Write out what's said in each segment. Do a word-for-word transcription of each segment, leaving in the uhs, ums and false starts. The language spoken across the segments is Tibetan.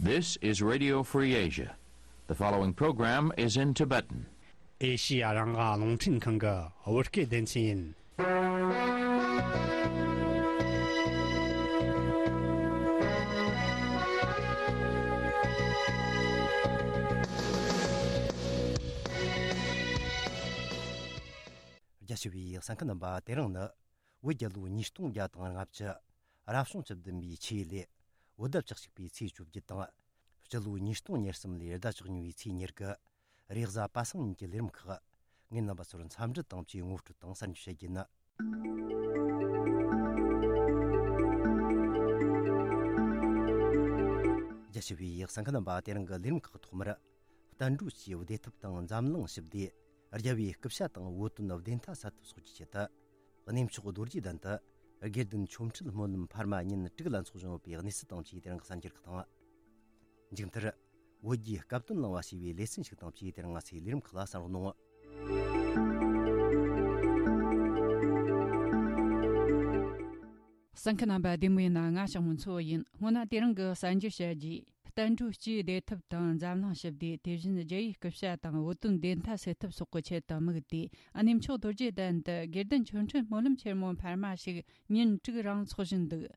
This is Radio Free Asia. The following program is in Tibetan. ཨེ་ཤི་ཡ་རང་དབང་རླུང་འཕྲིན་ཁང་གི་བོད་སྐད་སྡེ་ཚན་ཡིན། རྒྱ་ཆེ་བའི་གསན་མཁན་རྣམ་པ། དེ་རིང་ནི་བོད་རྒྱལ་ལོ་ཉིས་སྟོང་བརྒྱ་དང་ལྔ་བཅུ། རབ་བྱུང་བཅུ་བདུན་པའི་ཆུ་ཡོས་ལོའི་བོད་ཟླ་བཅུ་གཅིག་པའི་ཚེས་བཅོ་བརྒྱད་དང་། སྤྱི་ལོ་ཉིས་སྟོང་ཉེར་གསུམ་ལོའི་ཟླ་བཅུ་གཉིས་པའི་ཚེས་ཉེར་དགུ། རེས་གཟའ་པ་སངས་ཉིན་གྱི་ལས་རིམ་ཁག་ངས་རྣམ་པ་ཚོར་འཚམས་འདྲི་དང་བཅས་ངོ་སྤྲོད་དང་གསར་འགྱུར་བཤད་རྒྱུ་ཡིན། རྒྱ་ཆེ་བའི་གསན་མཁན་རྣམ་པ། དེ་རིང་གི་ལས་རིམ་ཁག་ཐོག་མར། བསྟན་འགྲོ་སྤྱིའི་བདེ་ཐབས་དང་འཛམ་གླིང་ཞི་བདེ། རྒྱལ་བའི་སྐུ་ཕྱྭ་དང་བོད་དོན་བདེན་མཐའ་གསལ་ཐུབ་སོགས་ཀྱི་ཆེད་དུ། གནས་མཆོག་རྡོ་རྗེ་གདན་དུ་དགེ་ལྡན་ཆོ་འཕྲུལ་སྨོན་ལམ་འཕར་མ་ཉིན་དྲུག་ལ་འཚོགས་བཞིན་ཡོད་པའི་གནས་ཚུལ་དང་བཅས་དེ་རིང་གི་གསར་འགྱུར་ཁག་དང་། མཇུག་མཐར། བོད་རྒྱའི་སྐབས་དོན་གླེང་བ་ཞེས་པའི་ལེ་ཚན་ཞིག་དང་བཅས་དེ་རིང་ང་ཚོའི་ལས་རིམ་ཁག་ལ་གསན་རོགས་གནང་། གསན་མཁན་རྣམ་པ། བདེ་མོ་ཡིན་ན། ང་ཞང་མོ་མཚོ་ཡིན། སྔོན་ན་དེ་རིང་གི་གསར་འགྱུར་བཤད་རྒྱུ། བསྟན་འགྲོ་སྤྱིའི་བདེ་ཐབས་དང་འཛམ་གླིང་ཞི་བདེ། དེ་བཞིན་རྒྱལ་བའི་སྐུ་ཕྱྭ་དང་བོད་དོན་བདེན་མཐའ་གསལ་ཐུབ་སོགས་ཀྱི་ཆེད་དུ་དམིགས་ཏེ། གནས་མཆོག་རྡོ་རྗེ་གདན་དུ་དགེ་ལྡན་ཆོ་འཕྲུལ་སྨོན་ལམ་ཆེན་མོ་འཕར་མ་ཞིག་ཉིན་དྲུག་རིང་འཚོགས་བཞིན་འདུག།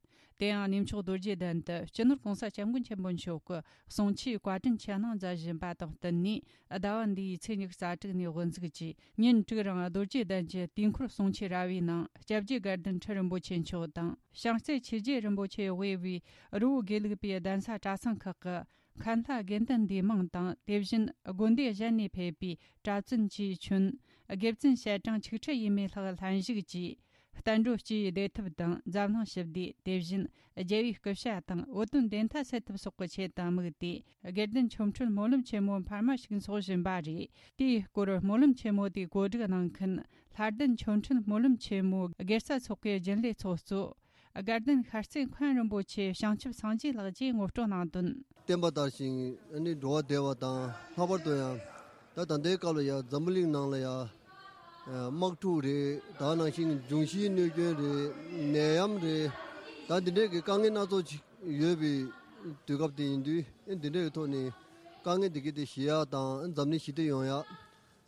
དེ་ཡང་གནས་མཆོག་རྡོ་རྗེ་གདན་དུ་སྤྱི་ནོར་༸གོང་ས་༸སྐྱབས་མགོན་ཆེན་པོ་མཆོག་གི་གསུང་ཆོས་བཀའ་དྲིན་ཆེ་གནང་མཛད་བཞིན་པ་དང་བསྟུན་ནས། ཟླ་བ་འདིའི་ཚེས་ཉི་ཤུ་རྩ་དྲུག་ནས་དབུ་འཛུགས་ཀྱིས་ཉིན་དྲུག་རིང་རྡོ་རྗེ་གདན་གྱི་དུས་འཁོར་གསུང་ཆོས་ར་བའི་ནང་། སྐྱབས་རྗེ་དགའ་ལྡན་ཁྲི་རིན་པོ་ཆེ་མཆོག་དང་། བྱང་རྩེ་ཆོས་རྗེ་རིན་པོ་ཆེ་དབུས་པའི་རི་བོ་དགེ་ལུགས་པའི་གདན་ས་གྲྭ་ཚང་ཁག་གི་མཁན་བླ་དགེ་འདུན་འདུས་མང་དང་། དེ་བཞིན་དགོན་སྡེ་གཞན་ནས་ཕེབས་པའི་གྲྭ་བཙུན་གྱིས་མཚོན། དགེ་བཙུན་ཞལ་གྲངས་ཆིག་ཁྲི་ཡས་མས་ལྷག་ལྷན་ཞུགས་ཀྱིས། བསྟན་འགྲོ་སྤྱིའི་བདེ་ཐབས་དང་འཛམ་གླིང་ཞི་བདེ། དེ་བཞིན་རྒྱལ་བའི་སྐུ་ཕྱྭ་དང་བོད་དོན་བདེན་མཐའ་གསལ་ཐུབ་སོགས་ཀྱི་ཆེད་དུ་དམིགས་ཏེ། དགེ་ལྡན་ཆོ་འཕྲུལ་སྨོན་ལམ་ཆེན་མོ་འཕར་མ་ཞིག་འཚོགས་བཞིན་པ་རེད། དེའི་སྐོར་སྨོན་ལམ་ཆེན་མོ་དེའི་གོ་སྒྲིག་གནང་མཁན། ལྷ་ལྡན་ཆོ་འཕྲུལ་སྨོན་ལམ་ཆེན་མོའི་དགེ་རྩ་ཚོགས་པའི་རྒྱུན་ལས་ཚོགས་གཙོ། དགའ་ལྡན་ཤར་རྩེ་མཁན་རིན་པོ་ཆེ་བྱང་ཆུབ་སངས་རྒྱས་ལགས་ཀྱིས་ངོ་སྤྲོད་གནང་དོན། བསྟན་པ་དར་ཞིང་ཨ་ནི་འགྲོ་བ་བདེ་བ་དང་། ལྷག་པར་དུ་ཡང་ད་ད་ལྟའི་སྐབས་ལ་ཡང་འཛམ་བུ་གླིང་ནང་ལ་ཡང་དམག་འཁྲུག་རེད། ད་ནང་བཞིན་འབྱུང་བཞིའི་གནོད་སྐྱོན་རེད། ནད་ཡམས་རེད། ད་འདི་འདྲའི་གི་དཀའ་ངལ་སྣ་ཚོགས་ཅིག་ཡོད་པའི་དུས་སྐབས་དེ་ཡིན་དུས། འདི་འདྲའི་གི་ཐོག་ནས་དཀའ་ངལ་འདི་གི་དེ་ཞི་ཡག་དང་འཛམ་གླིང་ཞི་བདེ་ཡོང་ཡག།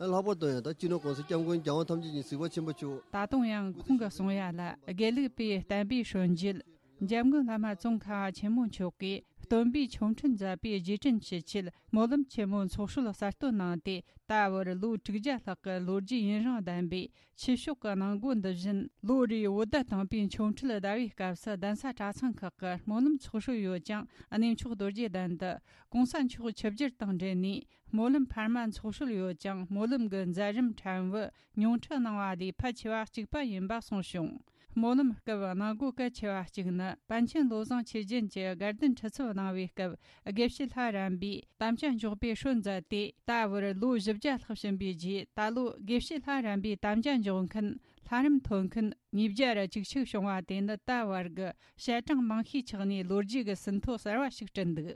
ལྷག་པར་དུ་ཡང་ད་སྤྱི་ནོར་༸གོང་ས་༸སྐྱབས་མགོན་༸རྒྱལ་དབང་ཐམས་ཅད་མཁྱེན་གཟིགས་པ་ཆེན་པོ་མཆོག། ད་དུང་ཡང་ཁོང་གིས་གསུང་ཡ་ལ། དགེ་ལུགས་པའི་བསྟན་པའི་སྲོལ་འབྱེད། འཇམ་མགོན་བླ་མ་ཙོང་ཁ་པ་ཆེན་པོ་མཆོག་གིས་སྟོན་པའི་ཆོ་འཕྲུལ་མཛད་པའི་རྗེས་དྲན་ཞུ་ཆེད་སྨོན་ལམ་ཆེན་མོ་ཚོགས་སྲོལ་གསར་གཏོད་གནང་སྟེ། ད་བར་ལོ་དྲུག་བརྒྱ་ལྷག་གི་ལོ་རྒྱུས་ཡུན་རིང་ལྡན་པའི་ཆོས་ཕྱོགས་ཀྱི་གནང་སྒོ་འདི་བཞིན། ལོ་རེའི་བོད་ཟླ་དང་པའི་ཆོ་འཕྲུལ་ཟླ་བའི་སྐབས་སུ་གདན་ས་གྲྭ་ཚང་ཁག་གི་སྨོན་ལམ་ཚོགས་སྲོལ་ཡོད་ཅིང་། གནས་མཆོག་རྡོ་རྗེ་གདན་དུ་༸གོང་ས་མཆོག་ཆིབས་བསྒྱུར་དང་འབྲེལ་ནས། སྨོན་ལམ་འཕར་མ་འཚོགས་སྲོལ་ཡོད་ཅིང་། སྨོན་ལམ་གྱི་མཛད་རིམ་ཕྲན་བུ་ཉུང་འཕྲི་གནང་བ་ལས་ཕལ་ཆེ་བ་གཅིག་པ་ཡིན་པ་གསུངས་བྱུང་། སྨོན་ལམ་སྐབས་གནང་སྒོ་གལ་ཆེ་བ་གཅིག་ནི། པཎ་ཆེན་བློ་བཟང་ཆོས་རྒྱན་གྱིས་དགའ་ལྡན་ཁྲི་ཚབ་གནང་བའི་སྐབས། དགེ་བཤེས་ལྷ་རམས་པའི་དམ་བཅའ་འཇོག་པའི་སྲོལ་མཛད་དེ། ད་བར་ལོ་བཞི་བརྒྱ་ལྷག་ཕྱིན་པའི་རྗེས། ད་ལོ་དགེ་བཤེས་ལྷ་རམས་པའི་དམ་བཅའ་འཇོག་མཁན། ལྷ་རམས་ཐོན་མཁན་ཉིས་བརྒྱ་ར་བཅུ་གཅིག་བྱུང་བ་དེ་ནི། ད་བར་གྱི་ཞལ་གྲངས་མང་ཤོས་ཆགས་ནས། ལོ་རྒྱུས་ཀྱི་ཟིན་ཐོ་གསར་བ་ཞིག་བསྐྲུན་འདུག།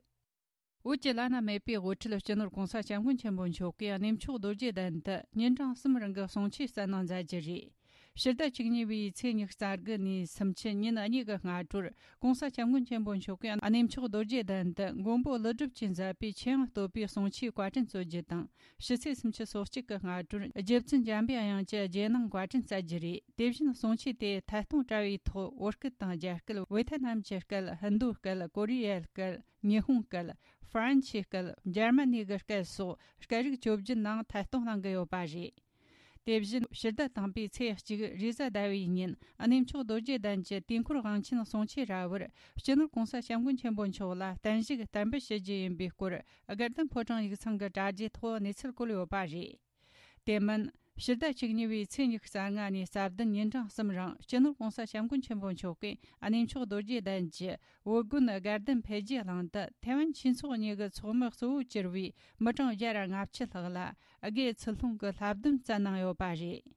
བོད་ཀྱི་བླ་ན་མེད་པའི་དབུ་ཁྲིད་སྤྱི་ནོར་༸གོང་ས་༸སྐྱབས་མགོན་ཆེན་པོ་མཆོག་གིས་གནས་མཆོག་རྡོ་རྗེ་གདན་དུ་ཉིན་གྲངས་གསུམ་རིང་གི་གསུང་ཆོས་སྩལ་གནང་མཛད་རྒྱུ་རེད། ཕྱི་ཟླ་བཅུ་གཉིས་པའི་ཚེས་ཉི་ཤུ་རྩ་དགུ་ནས་སུམ་ཅུ་ཉིན་གཉིས་ཀྱི་སྔ་དྲོར། ༸གོང་ས་༸སྐྱབས་མགོན་ཆེན་པོ་མཆོག་གིས་གནས་མཆོག་རྡོ་རྗེ་གདན་དུ་མགོན་པོ་ཀླུ་སྒྲུབ་ཀྱིས་མཛད་པའི་ཆོས་དབྱིངས་བསྟོད་པའི་གསུང་ཆོས་བཀའ་དྲིན་སྩོལ་རྒྱུ་དང་། ཕྱི་ཚེས་སུམ་ཅུ་སོ་གཅིག་གི་སྔ་དྲོར་རྗེ་བཙུན་འཇམ་པའི་དབྱངས་ཀྱི་རྗེས་གནང་བཀའ་དྲིན་སྩལ་རྒྱུ་རེད། དེ་བཞིན་གསུང་ཆོས་དེ་ཐད་གཏོང་དྲ་བའི་ཐོག་བོད་སྐད་དང་རྒྱ་སྐད། ཝེ་ཐེ་ནམ་གྱི་སྐད། ཧིན་རྡུ་སྐད། ཀོ་རི་ཡའི་སྐད། ཉི་ཧོང་སྐད། ཧྥ་རན་སིའི་སྐད། འཇར་མ་ནི་གི་སྐད་སོགས་སྐད་རིགས་བཅོ་བརྒྱད་ནང་ཐད་གཏོང་གནང་གི་ཡོད་པ་རེད། དེ་བཞིན་ཕྱི་ཟླ་དང་པའི་ཚེས་གཅིག་རེས་གཟའ་ཟླ་བའི་ཉིན། གནས་མཆོག་རྡོ་རྗེ་གདན་གྱི་དུས་འཁོར་དབང་ཆེན་གསུང་ཆོས་ར་བར། སྤྱི་ནོར་༸གོང་ས་༸སྐྱབས་མགོན་ཆེན་པོ་མཆོག་ལ་བརྟན་བཞུགས་བསྟར་འབུལ་ཞུ་རྒྱུ་ཡིན་པའི་སྐོར། དགའ་ལྡན་ཕོ་བྲང་ཡིག་ཚང་གི་དྲ་རྒྱའི་ཐོག་གནས་ཚུལ་བཀོད་ཡོད་པ་རེད། དེ་མིན། ཕྱི་ཟླ་བཅུ་གཉིས་པའི་ཚེས་ཉི་ཤུ་རྩ་ལྔ་ནས་རྩ་བདུན་ཉིན་གྲངས་གསུམ་རིང་སྤྱི་ནོར་༸གོང་ས་༸སྐྱབས་མགོན་ཆེན་པོ་མཆོག་གིས་གནས་མཆོག་རྡོ་རྗེ་གདན་གྱི་བོད་དགོན་དགའ་ལྡན་འཕེལ་རྒྱས་གླིང་དུ་ཐའེ་ཝན་ཆོས་ཚོགས་གཉིས་ཀྱི་ཚོགས་མི་གཙོ་བོ་གྱུར་བའི་མི་གྲངས་བརྒྱ་དང་ལྔ་བཅུ་ལྷག་ལ་དགེ་ཚུལ་སློང་གི་བསླབ་སྡོམ་སྩལ་གནང་ཡོད་པ་རེད།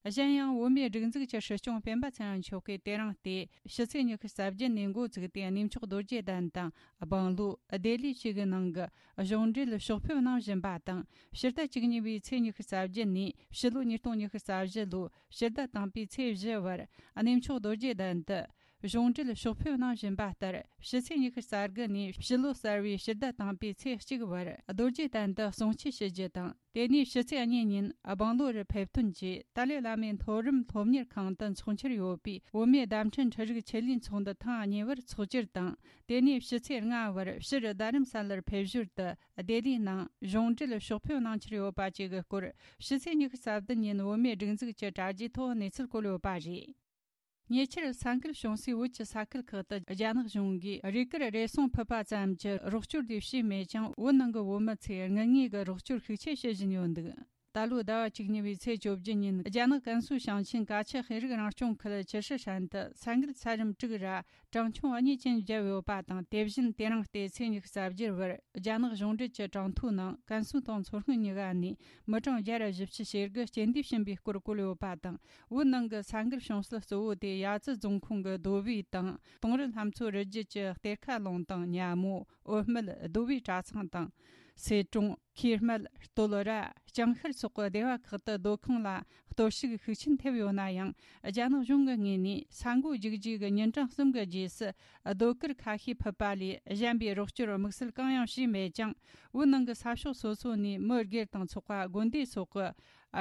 གཞན་ཡང་བོད་མིའི་སྒྲིག་འཛུགས་ཀྱི་སྲིད་སྐྱོང་སྤེན་པ་ཚེ་རིང་མཆོག་གིས་དེ་རིང་སྟེ་ཕྱི་ཚེས་ཉི་ཤུ་རྩ་བརྒྱད་ནས་འགོ་བཙུགས་ཏེ་གནས་མཆོག་རྡོ་རྗེ་གདན་དང་། སྦང་ལུ། ལྡི་ལི་བཅས་ཀྱི་ནང་གི་གཞུང་འབྲེལ་ཕྱོགས་ཕེབས་གནང་བཞིན་པ་དང་། ཕྱི་ཟླ་བཅུ་གཉིས་པའི་ཚེས་ཉི་ཤུ་རྩ་བརྒྱད་ནས་ཕྱི་ལོ་ཉིས་སྟོང་ཉི་ཤུ་རྩ་བཞི་ལོའི་ཕྱི་ཟླ་དང་པའི་ཚེས་བཞི་བར་གནས་མཆོག་རྡོ་རྗེ་གདན་དུ་ གཞུང་འབྲེལ་ཕྱོགས་ཕེབས་གནང་བཞིན་པ་ལྟར། ཕྱི་ཚེས་ཉི་ཤུ་རྩ་དགུ་ནས་ཕྱི་ལོ་གསར་བའི་ཕྱི་ཟླ་དང་པོའི་ཚེས་གཅིག་བར་རྡོ་རྗེ་གདན་དུ་གསུང་ཆོས་ཞུ་རྒྱུ་དང་། དེ་ནས་ཕྱི་ཚེས་གཉིས་ཉིན་སྦང་ལོར་ཕེབས་ཐོན་གྱིས་ཏཱ་ལའི་བླ་མའི་མཐོ་རིམ་སློབ་གཉེར་ཁང་དུ་འཚོགས་འཆར་ཡོད་པའི་བོད་མིའི་བརྡ་འཕྲིན་འཕྲུལ་རིག་ཆེད་ལས་ཚོགས་འདུ་ཐེངས་གཉིས་པར་འཚོགས་རྒྱུར་དང་། དེ་ནས་ཕྱི་ཚེས་ལྔ་བར་ཕྱིར་རྡ་རམ་ས་ལར་ཕེབས་ཞོར་དུ་ལྡི་ལིའི་ནང་གཞུང་འབྲེལ་ཕྱོགས་ཕེབས་གནང་འཆར་ཡོད་པ་བཅས་ཀྱི་སྐོར། ཕྱི་ཚེས་ཉི་ཤུ་རྩ་བདུན་ཉིན་བོད་མིའི་སྒྲིག་འཛུགས་ཀྱི་དྲ་རྒྱའི་ཐོག་གནས་ཚུལ་བཀོད་ཡོད་པ་རེད། ཉེ་ཆར་ས་འགུལ་བྱུང་སའི་བོད་ཀྱི་ས་ཁུལ་ཁག་ཏུ་རྒྱ་ནག་གཞུང་གིས་རས་གུར་རེ་ཟུང་ཕུད་པ་ཙམ་གྱི་རོགས་སྐྱོར་དེ་བྱས་མེད་ཀྱང་། བོད་ནང་གི་བོད་མི་ཚོས་དངུལ་དངོས་ཀྱི་རོགས་སྐྱོར་ཤུགས་ཆེ་བྱེད་བཞིན་ཡོད་འདུག་ད་ལོའི་ཟླ་བ་བཅུ་གཉིས་པའི་ཚེས་བཅོ་བརྒྱད་ཉིན། རྒྱ་ནག་ཀན་སུའུ་ཞིང་ཆེན་ཀ་ཆུ་ཤེས་རིག་རང་སྐྱོང་ཁུལ་ཅི་ཧྲི་ཧྲན་དུ་ས་འགུལ་ཚད་རིམ་དྲུག་ར་གྲངས་ཆུང་གཉིས་ཅན་བརྒྱབ་ཡོད་པ་དང་། དེ་བཞིན་དེ་རིང་སྟེ་ཚེས་ཉི་ཤུ་རྩ་བརྒྱད་བར་རྒྱ་ནག་གཞུང་འབྲེལ་གྱི་གྲངས་ཐོའི་ནང་ཀན་སུའུ་དང་མཚོ་སྔོན་གཉིས་ཀ་ནས་མི་གྲངས་བརྒྱ་ར་བཞི་བཅུ་ཞེ་དགུ་རྐྱེན་འདས་ཕྱིན་པའི་སྐོར་བཀོད་ཡོད་པ་དང་། བོད་ནང་གི་ས་འགུལ་བྱུང་ས་གཙོ་བོ་དེ་ཡ་ཙི་རྫོང་ཁོངས་ཀྱི་རྡོ་སྦིས་དང་། དུང་རི་ལྷ་མཚོ་རི་རྒྱུད་ཀྱི་གཏེར་ཁ་ལུང་དང་། ཉ་མོ། འོད་སྨད། རྡོ་སྦིས་གྲྭ་ཚང་དང་། སེ་ཀྲོང་། ཁེར་སྨད། སྟོད་ར། ལྕང་ཤར་སོགས་ཀྱི་སྡེ་བ་ཁག་ཏུ་སྡོད་ཁང་ལ་གཏོར་བཤིག་ཤུགས་ཆེན་ཐེབས་ཡོད་ན་ཡང་། རྒྱ་ནག་གཞུང་གི་ངོས་ནས་ས་འགོ་རྒྱུག་རྗེས་ཀྱི་ཉིན་གྲངས་གསུམ་གྱི་རྗེས་སུ་སྡོད་གུར་ཁ་ཤས་ཕུད་པ་ལས་གཞན་པའི་རོགས་སྐྱོར་དམིགས་བསལ་གང་ཡང་བྱས་མེད་ཀྱང་། བོད་ནང་གི་ས་ཕྱོགས་སོ་སོ་ནས་མི་སྒེར་དང་ཚོགས་པ། དགོན་སྡེ་སོགས་ཀྱི་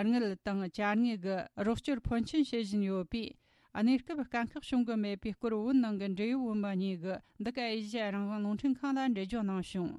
དངུལ་དང་ཅ་དངོས་ཀྱི་རོགས་སྐྱོར་ཕོན་ཆེན་བྱེད་བཞིན་ཡོད་པས། གནས་སྐབས་དཀའ་ཁག་བྱུང་གི་མེད་པའི་སྐོར་བོད་ནང་གི་འབྲེལ་ཡོད་བོད་མི་གཉིས་ཀྱིས་འདི་ག་ཨེ་ཤེ་ཡ་རང་དབང་རླུང་འཕྲིན་ཁང་ལ་འགྲེལ་བརྗོད་གནང་བྱུང་།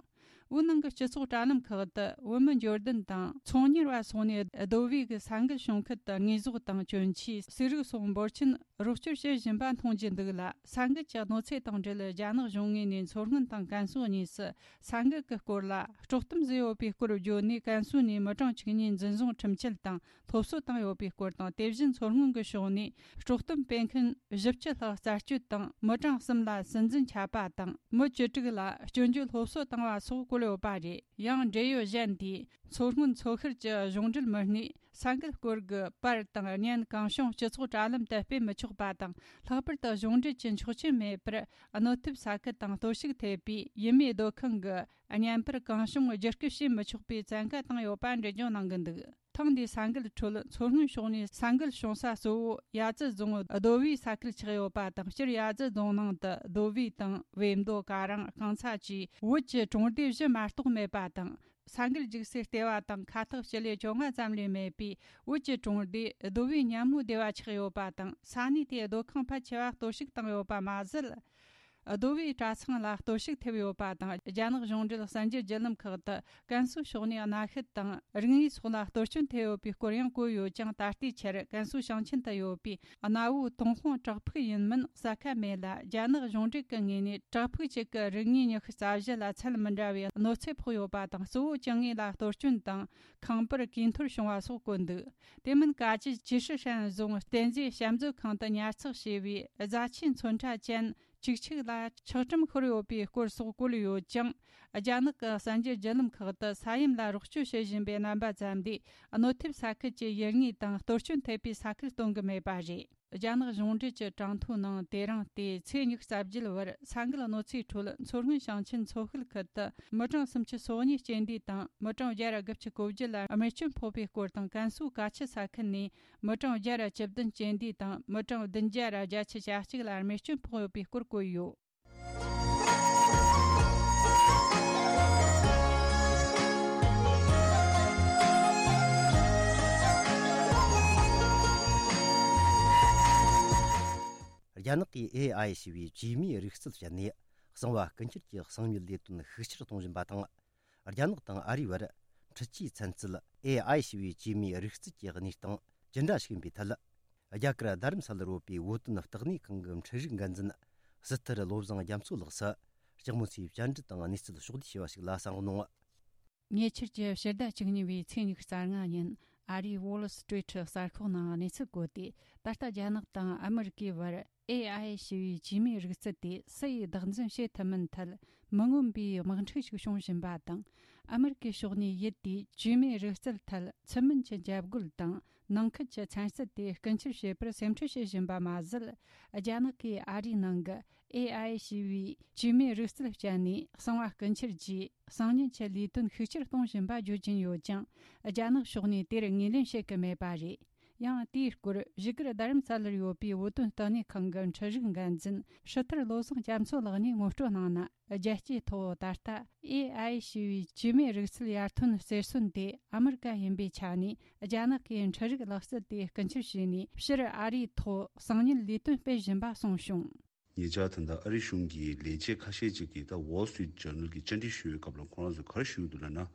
བོད་ནང་གི་སྤྱི་ཚོགས་དྲ་ལམ་ཁག་ཏུ་བོད་མི་འབྱོར་ལྡན་དང་ཚོང་གཉེར་བ་སོགས་ནས་རྡོ་སྦིས་ཀྱི་ས་འགུལ་བྱུང་ཁུལ་དུ་དངོས་ཟོག་དང་གྱོན་ཆས། གསེར་རིགས་སོགས་འབོར་ཆེན་རོགས་སྐྱོར་བྱེད་བཞིན་པ་མཐོང་རྒྱུ་འདུག་ལ། ས་འགུལ་གྱི་གནོད་འཚེ་དང་འབྲེལ། རྒྱ་ནག་གཞུང་ངོས་ནས་མཚོ་སྔོན་དང་ཀན་སུའུ་གཉིས་སུ་ས་འགུལ་གྱི་སྐོར་ལ་དཀྲོག་གཏམ་བཟོས་ཡོད་པའི་སྐོར་བརྗོད་ནས། ཀན་སུའུ་ནས་མི་གྲངས་བཅུ་གཉིས་འཛིན་བཟུང་ཁྲིམས་ཆད་དང་སློབ་གསོ་བཏང་ཡོད་པའི་སྐོར་དང་། དེ་བཞིན་མཚོ་སྔོན་གྱི་ཕྱོགས་ནས་དཀྲོག་གཏམ་སྤེལ་མཁན་བཞི་བཅུ་ལྷག་རྩད་གཅོད་དང་། མི་གྲངས་གསུམ་ལ་སྲིད་འཛིན་ཆད་པ་དང་། མི་བཅུ་དྲུག་ལ་སྐྱོན་བརྗོད་སློབ་གསོ་བཏང་བ་སོགས་བཀོད་ཡོད་པ་རེད། ཡང་འབྲེལ་ཡོད་གཞན་དེས། མཚོ་སྔོན་མཚོ་ཤར་གྱི་གཞུང་འབྲེལ་མི་སྣས་ས་འགུལ་སྐོར་གྱི་པར་དང་བརྙན་གང་བྱུང་སྤྱི་ཚོགས་དྲ་ལམ་དུ་སྤེལ་མི་ཆོག་པ་དང་། ལྷག་པར་དུ་གཞུང་འབྲེལ་གྱི་ཆོག་མཆན་མེད་པར་གནོད་ཐེབས་ས་ཁུལ་དང་གཏོར་བཤིག་ཐེབས་པའི་ཡུལ་མིའི་སྡོད་ཁང་གི་བརྙན་པར་གང་བྱུང་བརྒྱུད་སྐུལ་བྱེད་མི་ཆོག་པའི་བཙན་བཀའ་བཏང་ཡོད་པ་འགྲེལ་བརྗོད་གནང་གི་འདུག་ཐེངས་འདིའི་ས་འགུལ་ཁྲོད་མཚོ་སྔོན་ཕྱོགས་ནས་ས་འགུལ་བྱུང་ས་གཙོ་བོ་ཡ་ཙི་རྫོང་རྡོ་སྦིས་ས་ཁུལ་ཆགས་ཡོད་པ་དང་། སྤྱིར་ཡ་ཙི་རྫོང་ནང་དུ་རྡོ་སྦིས་དང་བེམ་རྡོ། ཀ་རང་། རྐང་ཚ་བཅས་བོད་ཀྱི་གྲོང་སྡེ་བཞི་མ་གཏོགས་མེད་པ་དང་། ས་འགུལ་རྒྱུག་སའི་ལྟེ་བ་དང་ཁ་ཐག་སྤྱི་ལེ་བཅོ་ལྔ་ཙམ་ལས་མེད་པས། བོད་ཀྱི་གྲོང་སྡེ་རྡོ་སྦིས་ཉ་མོའི་སྡེ་བ་ཆགས་ཡོད་པ་དང་། ས་གནས་དེའི་སྡོད་ཁང་ཕལ་ཆེ་བ་གཏོར་བཤིག་བཏང་ཡོད་པ་མ་ཟད། རྡོ་སྦིས་གྲྭ་ཚང་ལ་གཏོར་བཤིག་ཐེབས་ཡོད་པ་དང་། རྒྱ་ནག་གཞུང་འབྲེལ་གསར་འགྱུར་བརྒྱུད་ལམ་ཁག་ཏུ་ཀན་སུའུ་ཕྱོགས་ནས་གནའ་ཤུལ་དང་རིག་དངོས་སོགས་ལ་གཏོར་སྐྱོན་ཐེབས་ཡོད་པའི་སྐོར་ཡང་བཀོད་ཡོད་ཀྱང་། ད་ལྟའི་ཆར་ཀན་སུའུ་ཞིང་ཆེན་དུ་ཡོད་པའི་གནའ་བོའི་ཏུན་ཧོང་བྲག་ཕུག་ཡིན་མིན་གསལ་ཁ་མེད་ལ། རྒྱ་ནག་གཞུང་འབྲེལ་གྱི་ངོས་ནས་བྲག་ཕུག་གཅིག་གི་རིག་དངོས་ཉི་ཤུ་རྩ་བཞི་ལ་ཚད་མི་འདྲ་བའི་གནོད་འཚེ་ཕོག་ཡོད་པ་དང་། གཙོ་བོ་བཅུ་གཉིས་ལ་གཏོར་སྐྱོན་དང་ཁང་པར་གོས་འཐོར་བྱུང་བ་སོགས་བཀོད་འདུག་དེ་མིན་ཀ་ཅི་ཅི་ཧྲི་ཧྲན་རྫོང་རྟེན་རྫས་བཤམས་མཛོད་ཁང་དུ་ཉར་ཚགས་བྱས་པའི་རྫ་ཆས་ཚོན་ཁྲ་ཅན་བཅུ་གཅིག་ལ་ཆག་གྲུམ་ཤོར་ཡོད་པའི་སྐོར་སོགས་བཀོད་ཡོད་ཀྱང་། རྒྱ་ནག་གི་གསར་འགྱུར་བརྒྱུད་ལམ་ཁག་ཏུ་ས་ཡོམ་ལ་རོགས་སྐྱོར་བྱེད་བཞིན་པའི་རྣམ་པ་ཙམ་ལས། གནོད་ཐེབས་ས་ཁུལ་གྱི་ཡུལ་དངོས་དང་གཏོར་སྐྱོན་ཐེབས་པའི་ས་ཁུལ་སྟོན་གྱི་མེད་པ་རེད། རྒྱ་ནག་གཞུང་འབྲེལ་གྱི་གྲངས་ཐོའི་ནང་། དེ་རིང་སྟེ་ཚེས་ཉི་ཤུ་རྩ་བརྒྱད་བར་ས་འགུལ་གནོད་འཚེའི་ཁྲོད་མཚོ་སྔོན་ཞིང་ཆེན་མཚོ་ཤུལ་ཁུལ་དུ་མི་གྲངས་སུམ་ཅུ་སོ་གཉིས་རྐྱེན་འདས་དང་། མི་གྲངས་བརྒྱ་དགུ་བཅུ་གོ་བརྒྱད་ལ་རྨས་སྐྱོན་ཕོག་པའི་སྐོར་དང་། ཀན་སུའུ་ཀ་ཆུ་ས་ཁུལ་ནས་མི་གྲངས་བརྒྱ་དང་བཅུ་བདུན་རྐྱེན་འདས་དང་། མི་གྲངས་བདུན་བརྒྱ་དང་བརྒྱད་ཅུ་གྱ་གཅིག་ལ་རྨས་སྐྱོན་ཕོག་ཡོད་པའི་སྐོར་བཀོད་ཡོད། རྒྱ་ནག་གིས་ཨེ་ཨའི་ཞེས་པའི་བཅོས་མའི་རིག་རྩལ་སྤྱད་ནས་གསང་བ་སྐུ་འཁྱེར་གྱི་གསང་མྱུལ་ལས་དོན་ཤུགས་ཆེར་གཏོང་བཞིན་པ་དང་། རྒྱ་ནག་དང་ཨ་རིའི་བར་འཕྲུལ་ཆས་ཚན་རྩལ་ཨེ་ཨའི་ཞེས་པའི་བཅོས་མའི་རིག་རྩལ་གྱི་གནས་སྟངས་ཇི་འདྲ་ཞིག་ཡིན་པའི་ཐད། རྒྱ་གར་རྡ་རམ་ས་ལར་ཡོད་པའི་བོད་དོན་ལྟེ་གནས་ཁང་གི་འཕྲུལ་རིག་འགན་འཛིན་སི་ཐུར་བློ་བཟང་རྒྱ་མཚོ་ལགས་སུ་ལྕགས་མོ་ཚོས་བཅར་འདྲི་དང་གནས་ཚུལ་ཕྱོགས་བསྡུས་བྱས་པ་ཞིག་ལ་གསན་རོགས་གནང་། ཉེ་ཆར་གྱི་ཕྱི་ཟླ་བཅུ་གཉིས་པའི་ཚེས་ཉི་ཤུ་རྩ་ལྔ་ཉིན། ཨ་རིའི་Wall Street གསར་ཤོག་ནང་གནས་ཚུལ་བཀོད་དེ། ད་ལྟ་རྒྱ་ནག་དང་ཨ་མི་རི་ཀའི་བར་ཨེ་ཨའི་ཞེས་པའི་བཅོས་མའི་རིག་རྩལ་དེ་སུ་ཡིས་བདག་འཛིན་བྱེད་ཐུབ་མིན་ཐད་མི་མངོན་པའི་དམག་འཁྲུག་ཞིག་བྱུང་བཞིན་པ་དང་། ཨ་མི་རི་ཀའི་ཕྱོགས་ནས་ཡུལ་དེའི་བཅོས་མའི་རིག་རྩལ་ཐད་ཚུལ་མིན་གྱི་འཇབ་རྒོལ་དང་ནང་ཁུལ་གྱི་ཚན་རྩལ་དེ་རྐུ་འཁྱེར་བྱེད་པར་སེམས་ཁྲལ་བྱེད་བཞིན་པ་མ་ཟད། རྒྱ་ནག་གིས་ཨ་རིའི་ནང་གི་ཨེ་ཨའི་ཞེས་པའི་བཅོས་མའི་རིག་རྩལ་སྤྱད་ནས་གསང་བ་རྐུ་འཁྱེར་གྱིས་གསང་ཉུལ་གྱི་ལས་དོན་ཤུགས་ཆེར་གཏོང་བཞིན་པ་བརྗོད་ཀྱིན་ཡོད་ཀྱང་། རྒྱ་ནག་ཕྱོགས་ནས་དེར་ངོས་ལེན་བྱེད་ཀྱི་མེད་པ་རེད། ཡང་དེའི་སྐོར་བཞུགས་སྒར་རྡ་རམ་ས་ལར་ཡོད་པའི་བོད་དོན་ལྟེ་གནས་ཁང་གི་འཕྲུལ་རིག་འགན་འཛིན་ཧྲི་ཐར་བློ་བཟང་རྒྱ་མཚོ་ལགས་ནས་ངོ་སྤྲོད་གནང་ན། རྒྱལ་སྤྱིའི་ཐོག་ད་ལྟ་ཨེ་ཨའི་ཞེས་པའི་བཅོས་མའི་རིག་རྩལ་ཡར་ཐོན་གསེར་སོན་དེ་ཨ་མི་རི་ཀ་ཡིན་པའི་ཆ་ནས། རྒྱ་ནག་གིས་འཕྲུལ་རིག་ལག་རྩལ་དེ་རྐུ་འཁྱེར་བྱས་ནས། ཕྱིར་ཨ་རིའི་ཐོག་གསང་ཉུལ་ལས་དོན་སྤེལ་བཞིན་པ་གསུངས་བྱུང་། ཉེ་ཆར་ད་ལྟ་ཨ་རི་གཞུང་གི་ལས་བྱེད་ཁ་ཤས་ཅིག་གིས་ད་Wall Street Journal གྱི་བཅར་འདྲི་ཞུ་བའི་སྐབས་ལ་ཁོ་རང་ཚོས་ག་རེ་ཞུ་གི་འདུག་ལབ་ན།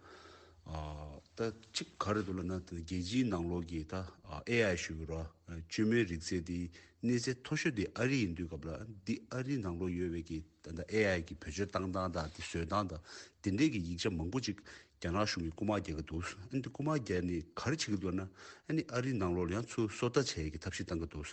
ཨ་ད་གཅིག་ག་རེ་འདུག་ལབ་ན། ད་རྒྱལ་སྤྱིའི་ནང་ལོགས་ཀྱི་ད་ཨེ་ཨའི་ཞུ་གི་རེད། བཅོས་མའི་རིག་རྩལ་དེ་གནས་ཚད་མཐོ་ཤོས་དེ་ཨ་རི་ཡིན་དུས་སྐབས་ལ། འདི་ཨ་རི་ནང་ལོགས་ཡོད་པའི་གི་ད་ལྟ་ཨེ་ཨའི་གི་བེད་སྤྱོད་བཏང་སྟངས་དང་། དེ་བཟོས་སྟངས་དང་། དེ་འདྲའི་གི་ཡིག་ཆ་མང་པོ་ཅིག་རྒྱ་ནག་གཞུང་གིས་རྐུ་མ་རྒྱག་གི་འདུག། ཨ་ནི་དེ་རྐུ་མ་རྒྱག་ནས་ག་རེ་བྱེད་ཀྱི་འདུག་ན། ཨ་ནི་ཨ་རིའི་ནང་ལོགས་ལ་ཡང་ཚུར་སོ་ལྟ་བྱེད་ཡས་ཀྱི་ཐབས་ཤེས་བཏང་གི་འདུག།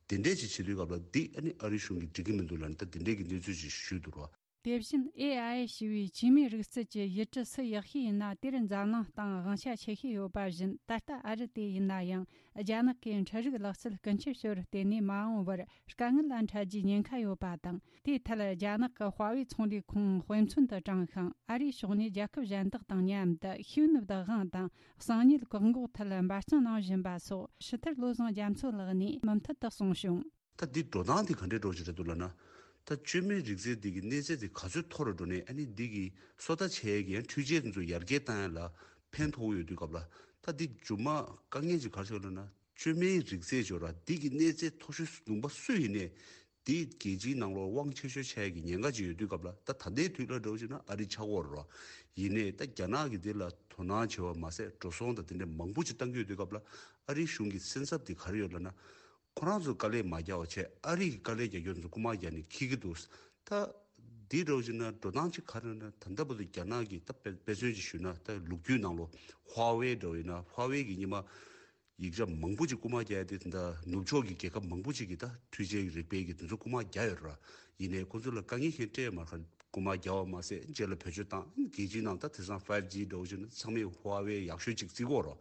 དེ་འདྲས་ཅིག་བྱེད་དུས་སྐབས་ལ་འདི་ཨ་ནི་ཨ་རིའི་གཞུང་གིས་འགྲིག་གི་མི་འདུག་ལབ་ནས། ད་དེ་འདྲས་ཀྱི་གནས་ཚུལ་ཅིག་ཞུས་འདུག་རོ། དེ་བཞིན་ཨེ་ཨའི་ཞེས་པའི་བཅོས་མའི་རིག་རྩལ་གྱི་ཡུལ་གྲུ་སུ་ཡག་ཤོས་ཡིན་ན། དེར་འཛམ་གླིང་སྟེང་དབང་ཆ་ཆེ་ཤོས་ཡོད་པ་བཞིན། ད་ལྟ་ཨ་རི་དེ་ཡིན་ན་ཡང་རྒྱ་ནག་གིས་འཕྲུལ་རིག་ལག་རྩལ་རྐུ་འཁྱེར་ཞོར་བརྟེན་ནས་མ་འོངས་པར་དཀའ་ངལ་ལ་འཕྲད་རྒྱུའི་ཉེན་ཁ་ཡོད་པ་དང་། དེའི་ཐད་རྒྱ་ནག་གི་ཧྭ་ཝེ་ཚོང་ལས་ཁང་དཔེ་མཚོན་དུ་དྲངས་ཤིང་། ཨ་རིའི་ཕྱོགས་ནས་རྒྱལ་ཁབ་གཞན་དག་དང་མཉམ་དུ་ཤེས་ཡོན་བདག་དབང་དང་གསང་ཉུལ་བཀག་འགོག་ཐད་འབད་བརྩོན་གནང་བཞིན་པ་སོགས་ཧྲི་ཐར་བློ་བཟང་རྒྱ་མཚོ་ལགས་ནས་མུ་མཐུད་དུ་གསུངས་བྱུང་། ད་འདི་འགྲོ་སྟངས་འདི་ག་འདྲའི་འགྲོ་བཞིན་རེད་འདུག་ལབ་ན། ད་བཅོས་མའི་རིག་རྩལ་འདི་གི་གནས་ཚད་དེ་ག་ཚོད་མཐོ་རུ་འགྲོ་ནས། ཨ་ནི་འདི་གི་སོ་ལྟ་བྱེད་ཡས་ཀྱི་ཡང་འཕྲུལ་ཆས་དེ་ཚོ་ཡར་རྒྱས་བཏང་ཡས་ལ་ཕན་ཐོགས་ཡོད་དུས་སྐབས་ལ། ད་འདི་མཇུག་མ་དཀའ་ངལ་ཅིག་ག་རེ་ཆགས་ལབ་ན། བཅོས་མའི་རིག་རྩལ་ཅིག་ཡོད་ར། འདི་གི་གནས་ཚད་མཐོ་ཤོས་ལུང་པ་སུ་ཡིན་ནའི། འདི་རྒྱལ་སྤྱིའི་ནང་ལོགས་དབང་ཆེ་ཤོས་ཆགས་ཡས་ཀྱི་ཉེན་ཁ་ཅིག་ཡོད་དུས་སྐབས་ལ། ད་ད་ལྟའི་དུས་ལ་འགྲོ་བཞིན་ན་ཨ་རི་ཆགས་ཀྱི་ཡོད་རེད་ར། ཡིན་ནའི་ད་རྒྱ་ནག་གིས་འདི་ལ་དོ་སྣང་བྱེད་པ་མ་ཟད། འགྲོ་སོང་དང་དེ་འདྲ་མང་པོ་ཅིག་བཏང་གི་ཡོད་དུས་སྐབས་ལ། ཨ་རིའི་གཞུང་གི་སེམས་འཚབ་དེ་ག་རེ་ཡོད་ལབ་ན། ཁོ་རང་ཚོས་དཀའ་ལས་མ་རྒྱག་པ་བྱས། ཨ་རི་གིས་དཀའ་ལས་རྒྱག་རྒྱུ་ཚོ་རྐུ་མ་རྒྱག་ནས་འཁྱེར་གྱི་འདུག། ད་འདི་འདྲ་བོ་ཅིག་ན་འགྲོ་སྟངས་ཅིག་ག་རེ་ན། ད་ལྟ་བར་དུ་རྒྱ་ནག་གིས་ད་དཔེ་དཔེ་མཚོན་ཅིག་ཞུས་ན། ད་ལོ་རྒྱུས་ནང་ལོགས་ཧྭ་ཝེ་འདྲ་བོ་ཡིན་ན། ཧྭ་ཝེ་གིས་སྔོན་མ་ཡིག་ཆ་མང་པོ་ཅིག་རྐུ་མ་རྒྱག་ཡ་དེ། ད་ནུབ་ཕྱོགས་ཀྱི་རྒྱལ་ཁབ་མང་པོ་ཅིག་གིས་ད་འཕྲུལ་ཆས་ཀྱི་རིག་པའི་གི་དེ་ཚོ་རྐུ་མ་རྒྱག་ཡོད་ར། ཡིན་ནའི་ཁོ་ཚོ་ལ་དཀའ་ངལ་གཞན་སྤྲད་མ་རེད། རྐུ་མ་རྒྱག་པ་མ་ཟད། རྗེས་ལ་བེད་སྤྱོད་བཏང་། རྒྱལ་སྤྱིའི་ནང་ད་དེང་སང་ཕའིབ་ཇི་འདྲ་བོ་ཅིག་ན་ཚང་མས་ཧྭ་ཝེ་ཡག་ཤོས་ཅིག་བརྩི་གི་ཡོད་རེད།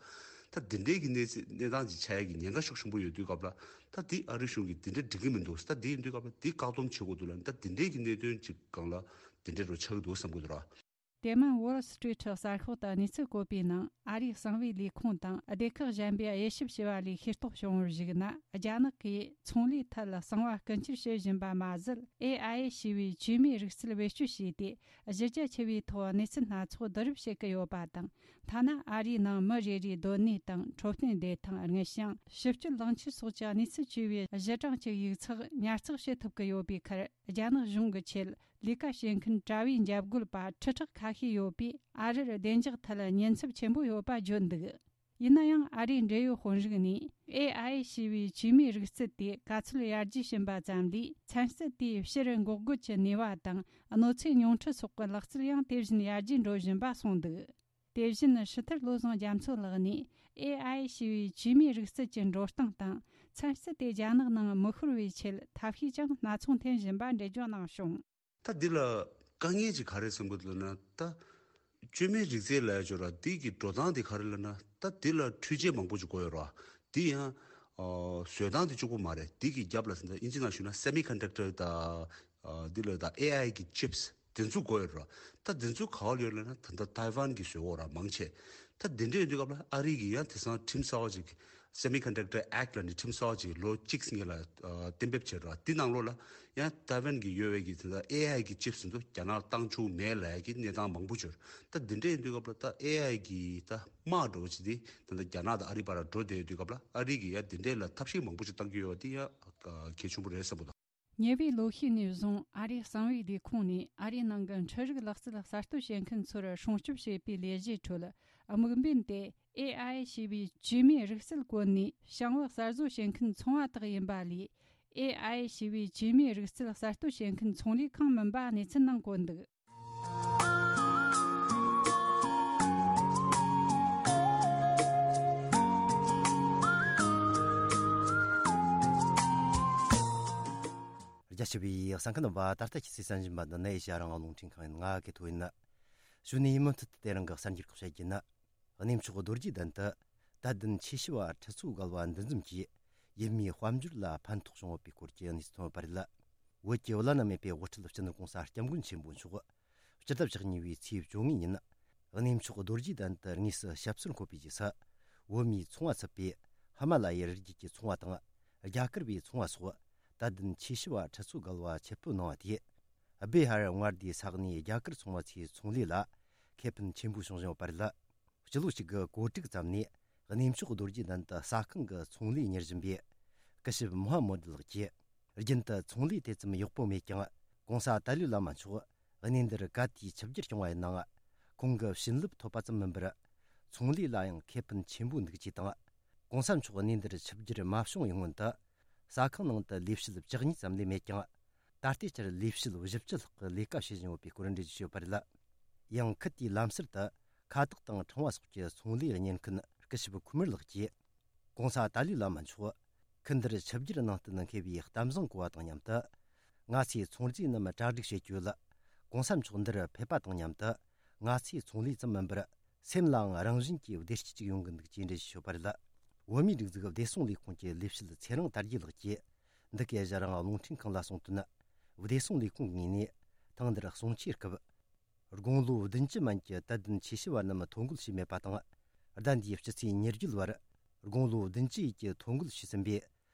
ད་དེ་འདྲའི་གི་གནས་ཚད་གནས་སྟངས་ཅིག་ཆགས་ཡ་གི་ཉེན་ཁ་ཤུགས་ཆེན་པོ་ཡོད་དུས་སྐབས་ལ། ད་དེ་ཨ་རི་གཞུང་གིས་དེ་འདྲ་འགྲིག་གི་མི་འདུག། ད་དེ་ཡིན་དུས་སྐབས་ལ་དེ་བཀག་སྡོམ་བྱེད་དགོས་འདུག་ལབ། ད་དེ་འདྲའི་གི་གནད་དོན་ཅིག་སྒང་ལ་དེ་འདྲ་འདྲ་བོ་ཆགས་ཀྱི་འདུག་བསམ་གྱི་འདུག་ར། དེ་མིན་Wall Street གསར་ཤོག་ཏུ་གནས་ཚུལ་བཀོད་པའི་ནང་། ཨ་རིའི་གསང་བའི་ལས་ཁུངས་དང་སྡེ་ཁག་གཞན་པས་དབྱེ་ཞིབ་བྱས་པ་ལས་ཤེས་རྟོགས་བྱུང་བར་གཞིགས་ན། རྒྱ་ནག་གིས་ཚོང་ལས་ཐད་གསང་བ་རྐུ་འཁྱེར་བྱེད་བཞིན་པ་མ་ཟད། ཨེ་ཨའི་ཞེས་པའི་བཅོས་མའི་རིག་རྩལ་བེད་སྤྱོད་བྱས་ཏེ། གཞི་རྒྱ་ཆེ་བའི་ཐོག་གནས་ཚུལ་སྣ་ཚོགས་བསྡུ་རུབ་བྱེད་ཀྱི་ཡོད་པ་དང་། ཐ་ན་ཨ་རིའི་ནང་མི་རེ་རེའི་སྡོད་གནས་དང་། འཕྲོད་བསྟེན་བདེ་ཐང་། དངུལ་བྱང་། ཕྱི་སྤྱོད་ལོངས་སྤྱོད་སོགས་ཀྱི་གནས་ཚུལ་བཅས་པའི་གཞི་གྲངས་ཀྱི་ཡིག་ཚགས་ཉར་ཚགས་བྱེད་ཐུབ་ཀྱི་ཡོད་པའི་ཁར། རྒྱ་ནག་གཞུང་གི་ཆེད་ལས་ཀ་བྱེད་མཁན་དྲ་བའི་འཇབ་རྒོལ་པ་ཁྲི་ཕྲག་ཁ་ཤས་ཡོད་པས། ཨ་རིར་བདེ་འཇགས་ཐད་ཉེན་ཚབས་ཆེན་པོ་ཡོད་པ་བརྗོད་འདུག། ཡིན་ན་ཡང་། ཨ་རིའི་འབྲེལ་ཡོད་དཔོན་རིགས་ནས། ཨེ་ཨའི་ཞེས་པའི་བཅོས་མའི་རིག་རྩལ་དེ་ག་ཚོད་ཡར་རྒྱས་ཕྱིན་པ་ཙམ་ལས། ཚན་རྩལ་དེའི་ཕྱིར་འགོག་རྒོལ་གྱི་ནུས་པ་དང་། གནོད་འཚེ་ཉུང་འཕྲི་སོགས་ཀྱི་ལག་རྩལ་ཡང་དེ་བཞིན་ཡར་རྒྱས་འགྲོ་བཞིན་པ་གསུངས་འདུག། དེ་བཞིན་ཧྲི་ཐར་བློ་བཟང་རྒྱ་མཚོ་ལགས་ནས། ཨེ་ཨའི་ཞེས་པའི་བཅོས་མའི་རིག་རྩལ་གྱི་འགྲོ་སྟངས་དང་། ཚན་རྩལ་དེ་རྒྱ་ནག་ནང་མི་ཤོར་བའི་ཆེད། ཐབས་ཤེས་ཀྱང་སྣ་ཚོགས་འཐེན་བཞིན་པ་འགྲེལ་བརྗོད་གནང་བྱུང་། ད་འདི་ལ་དཀའ་ངལ་ཅིག་ག་རེ་ཟེར་གྱི་འདུག་ལབ་ན། ད་བཅོས་མའི་རིག་རྩལ་ལབ་ཡ་ཅིག་ཡོད་ར། འདི་གི་འགྲོ་སྟངས་དེ་ག་རེ་ལབ་ན། ད་འདི་ལ་འཕྲུལ་ཆས་མང་པོ་ཅིག་དགོས་ཡོད་ར། འདི་ཡང་ཨ་བཟོ་སྟངས་དེ་གཅིག་པོ་མ་རེད། འདི་གི་རྒྱབ་ལ་ད་ལྟ་ཨིན་ཇི་ནང་ཞུས་ན་semiconductor། ད་ཨ་འདི་ལ་ད་ཨེ་ཨའི་གི་ཅིབས་དེ་ཚོ་དགོས་ཡོད་ར། ད་དེ་ཚོ་ག་པར་ཡོད་ལབ་ན། ད་ལྟ་ཏའེ་ཝན་གྱིས་བཟོས་ཡོད་ར། མང་ཆེ། ད་དེ་འདྲ་ཡིན་དུས་སྐབས་ལ་ཨ་རི་གིས་ཡང་དེང་སང་ཁྲིམས་གསར་པ་ཅིག Semiconductor Act ལབ་ནས་ཁྲིམས་གསར་པ་ཅིག་ལོ་གཅིག་སྔོན་ལ་ཨ་གཏན་འབེབས་བྱས་ར། དེ་ནང་ལོགས་ལ་ཡང་ཏའེ་ཝན་གྱི་ཡོད་པའི་གི་ད་ལྟ་ཨེ་ཨའི་གི་ཅིབས་ཚོ་རྒྱ་ནག་བཏང་བཅུག་མེད་ལབ་ཡ་གི་གནས་སྟངས་མང་པོ་བྱུང་། ད་འདི་འདྲ་ཡིན་དུས་སྐབས་ལ་ད་ཨེ་ཨའི་གི་ད་དམག་འདྲ་བོ་ཅིག་དེ་ད་ལྟ་རྒྱ་ནག་དང་ཨ་རི་བར་འགྲོ་བསྡད་ཡོད་དུས་སྐབས་ལ། ཨ་རི་གིས་ཡང་འདི་འདྲ་ལ་ཐབས་ཤེས་མང་པོ་ཅིག་བཏང་གི་ཡོད་པ་དེ་ཡང་གལ་ཆེན་པོ་རེད་བསམ་གྱི་འདུག། ཉེ་བའི་ལོ་ཤས་ནས་བཟུང་ཨ་རིའི་གསང་བའི་ལས་ཁུངས་ནས་ཨ་རིའི་ནང་གི་འཕྲུལ་རིག་ལག་རྩལ་གསར་གཏོད་བྱེད་མཁན་ཚོར་སྲུང་སྐྱོབ་བྱེད་པའི་ལས་གཞིའི་ཁྲོད། དམིགས་འབེན་དེ་ཨེ་ཨའི་ཞེས་པའི་བཅོས་མའི་རིག་རྩལ་བཀོལ་ནས་ཞིང་པ་གསར་བཟོ་བྱེད་མཁན་ཚོང་བ་དག་ཡིན་པ་ལས། ཨེ་ཨའི་ཞེས་པའི་བཅོས་མའི་རིག་རྩལ་གསར་གཏོད་བྱེད་མཁན་ཚོང་ལས་ཁང་མིན་པ་གནས་ཚུལ་ནང་བཀོད་འདུག། རྒྱ་ཆེ་བའི་གསན་མཁན་རྣམ་པ། ད་ལྟ་ཁྱེད་ཚོས་གསན་བཞིན་པ་འདི་ནི་ཨེ་ཤ་ཡ་རང་དབང་རླུང་འཕྲིན་ཁང་ཡིན། ང་གི་ཐོ་ཡིན། གཞུག་ནས་ཡིན་མུ་མཐུད་དུ་དེ་རིང་གི་གསར་འགྱུར་ཁག་བཤད་རྒྱུ་ཡིན། གནས་མཆོག་རྡོ་རྗེ་གདན་དུ་དད་ལྡན་ཆོས་ཞུ་བ་ཁྲི་ཚོ་བརྒལ་བ་འདུ་འཛོམས་ཀྱིས་ཡུལ་མིའི་དཔལ་འབྱོར་ལ་ཕན་ཐོགས་བྱུང་ཡོད་པའི་སྐོར་གྱི་གནས་ཚུལ་ཐོན་ཡོད་པ་རེད། བོད་ཀྱི་བླ་ན་མེད་པའི་དབུ་ཁྲིད་སྤྱི་ནོར་༸གོང་ས་༸སྐྱབས་མགོན་ཆེན་པོ་མཆོག་སྤྱི་ཟླ་བཅུ་གཉིས་པའི་ཚེས་བཅོ་ལྔ་ཉིན་གནས་མཆོག་རྡོ་རྗེ་གདན་དུ་དངོས་སུ་ཞབས་སོར་འཁོད་པའི་རྗེས་སུ། བོད་མིའི་ཚོང་བ་ཚུད་པའི་ ཧི་མ་ལ་ཡའི་རི་རྒྱུད་ཀྱི་ཚོང་བ་དང་རྒྱ་གར་བའི་ཚོང་བ་སོགས་དད་ལྡན་ཆོས་ཞུ་བ་ཁྲི་ཚོ་བརྒལ་བ་ཆེད་ཕེབས་གནང་བ་དེས། སྦེ་ཧར་མངའ་སྡེའི་ས་གནས་རྒྱ་གར་ཚོང་པ་ཚོའི་ཚོང་ལས་ལ་ཁེ་ཕན་ཆེན་པོ་བྱུང་བཞིན་ཡོད་པ་རེད། སྤྱི་ལོ་གཅིག་དགུ་གོ་དྲུག་ཙམ་ནས་གནས་མཆོག་རྡོ་རྗེ་གདན་དུ་ཟ་ཁང་གི་ཚོང་ལས་གཉེར་བཞིན་པའི་སྐུ་ཞབས་མུ་ཧམ་མོ་དི་ལགས་ཀྱིས། རྒྱུན་དུ་ཚོང་ལས་དེ་ཙམ་ཡག་པོ་མེད་ཀྱང་། གོང་ས་ཏཱ་ལའི་བླ་མ་མཆོག་གནས་འདིར་ག་དུས་ཆིབས་བསྒྱུར་བྱུང་བ་ཡིན་ནའང་། ཁོང་གི་བྱིན་རླབས་ཐོབ་པ་ཙམ་མིན་པར། ཚོང་ལས་ལ་ཡང་ཁེ་ཕན་ཆེན་པོ་འདུག་ཅེས་དང་། གོང་ས་མཆོག་གནས་འདིར་ཆིབས་བསྒྱུར་མ་བྱུང་བའི་སྔོན་དུ། ཟ་ཁང་ནང་དུ་ལས་བྱེད་བཅུ་གཉིས་ཙམ་ལས་མེད་ཀྱང་། ད་ལྟའི་ཆར་ལས་བྱེད་བཞི་བཅུ་ལྷག་གིས་ལས་ཀ་བྱེད་བཞིན་ཡོད་པའི་སྐོར་འགྲེལ་བརྗོད་བྱས་ཡོད་པ་རེད། ཡང་ཁུལ་དེའི་ལམ་སར་དུ་ཁ་བཏགས་དང་ཕྲེང་བ་སོགས་ཀྱི་ཚོང་ལས་གཉེར་མཁན་སྐུ་ཞབས་ཁུ་མུར་ལགས་ཀྱིས། གོང་ས་ཏཱ་ལའི་བླ་མ་མཆོག་ཁུལ་འདིར་ཆིབས་བསྒྱུར་གནང་བརྟེན་འཁེལ་བའི་གཏམ་བཟང་གོ་བ་དང་མཉམ་དུ། ང་ཚོའི་ཚོང་རྫས་རྣམས་གྲ་སྒྲིག་བྱེད་རྒྱུ་ལ། གོང་ས་མཆོག་འདིར་ཕེབས་པ་དང་མཉམ་དུ། ང་ཚོའི་ཚོང་ལས་ཙམ་མིན་པར། སེམས་ལའང་རང་བཞིན་གྱིས་བདེ་སྐྱིད་ཅིག་ཡོང་གི་འདུག་ཅེས་འགྲེལ་བརྗོད་ཡོད་པ་རེད། བོད་མིའི་སྒྲིག་འཛུགས་བདེ་སྲུང་ལས་ཁུངས་ཀྱི་ལས་བྱེད་ཚེ་རིང་དར་རྒྱས་ལགས་ཀྱིས། འདི་གའི་ཞལ་རང་རླུང་འཕྲིན་ཁང་ལ་གསུངས་དོན། བདེ་སྲུང་ལས་ཁུངས་ངོས་ནས་ཐེངས་འདིར་གསུང་ཆོས་སྐབས། དགུང་ལོ་བདུན་ཅུ་མན་གྱི་དད་ལྡན་ཆོས་ཞུ་བ་རྣམས་ཐོ་འགོད་བྱས་མེད་པ་དང་། ཟླ་འདིའི་སྤྱི་ཚེས་ཉེར་བརྒྱད་བར་དགུང་ལོ་བདུན་ཅུ་ཡས་ཀྱི་ཐོ་འགོད་བྱས་ཟིན་པའི་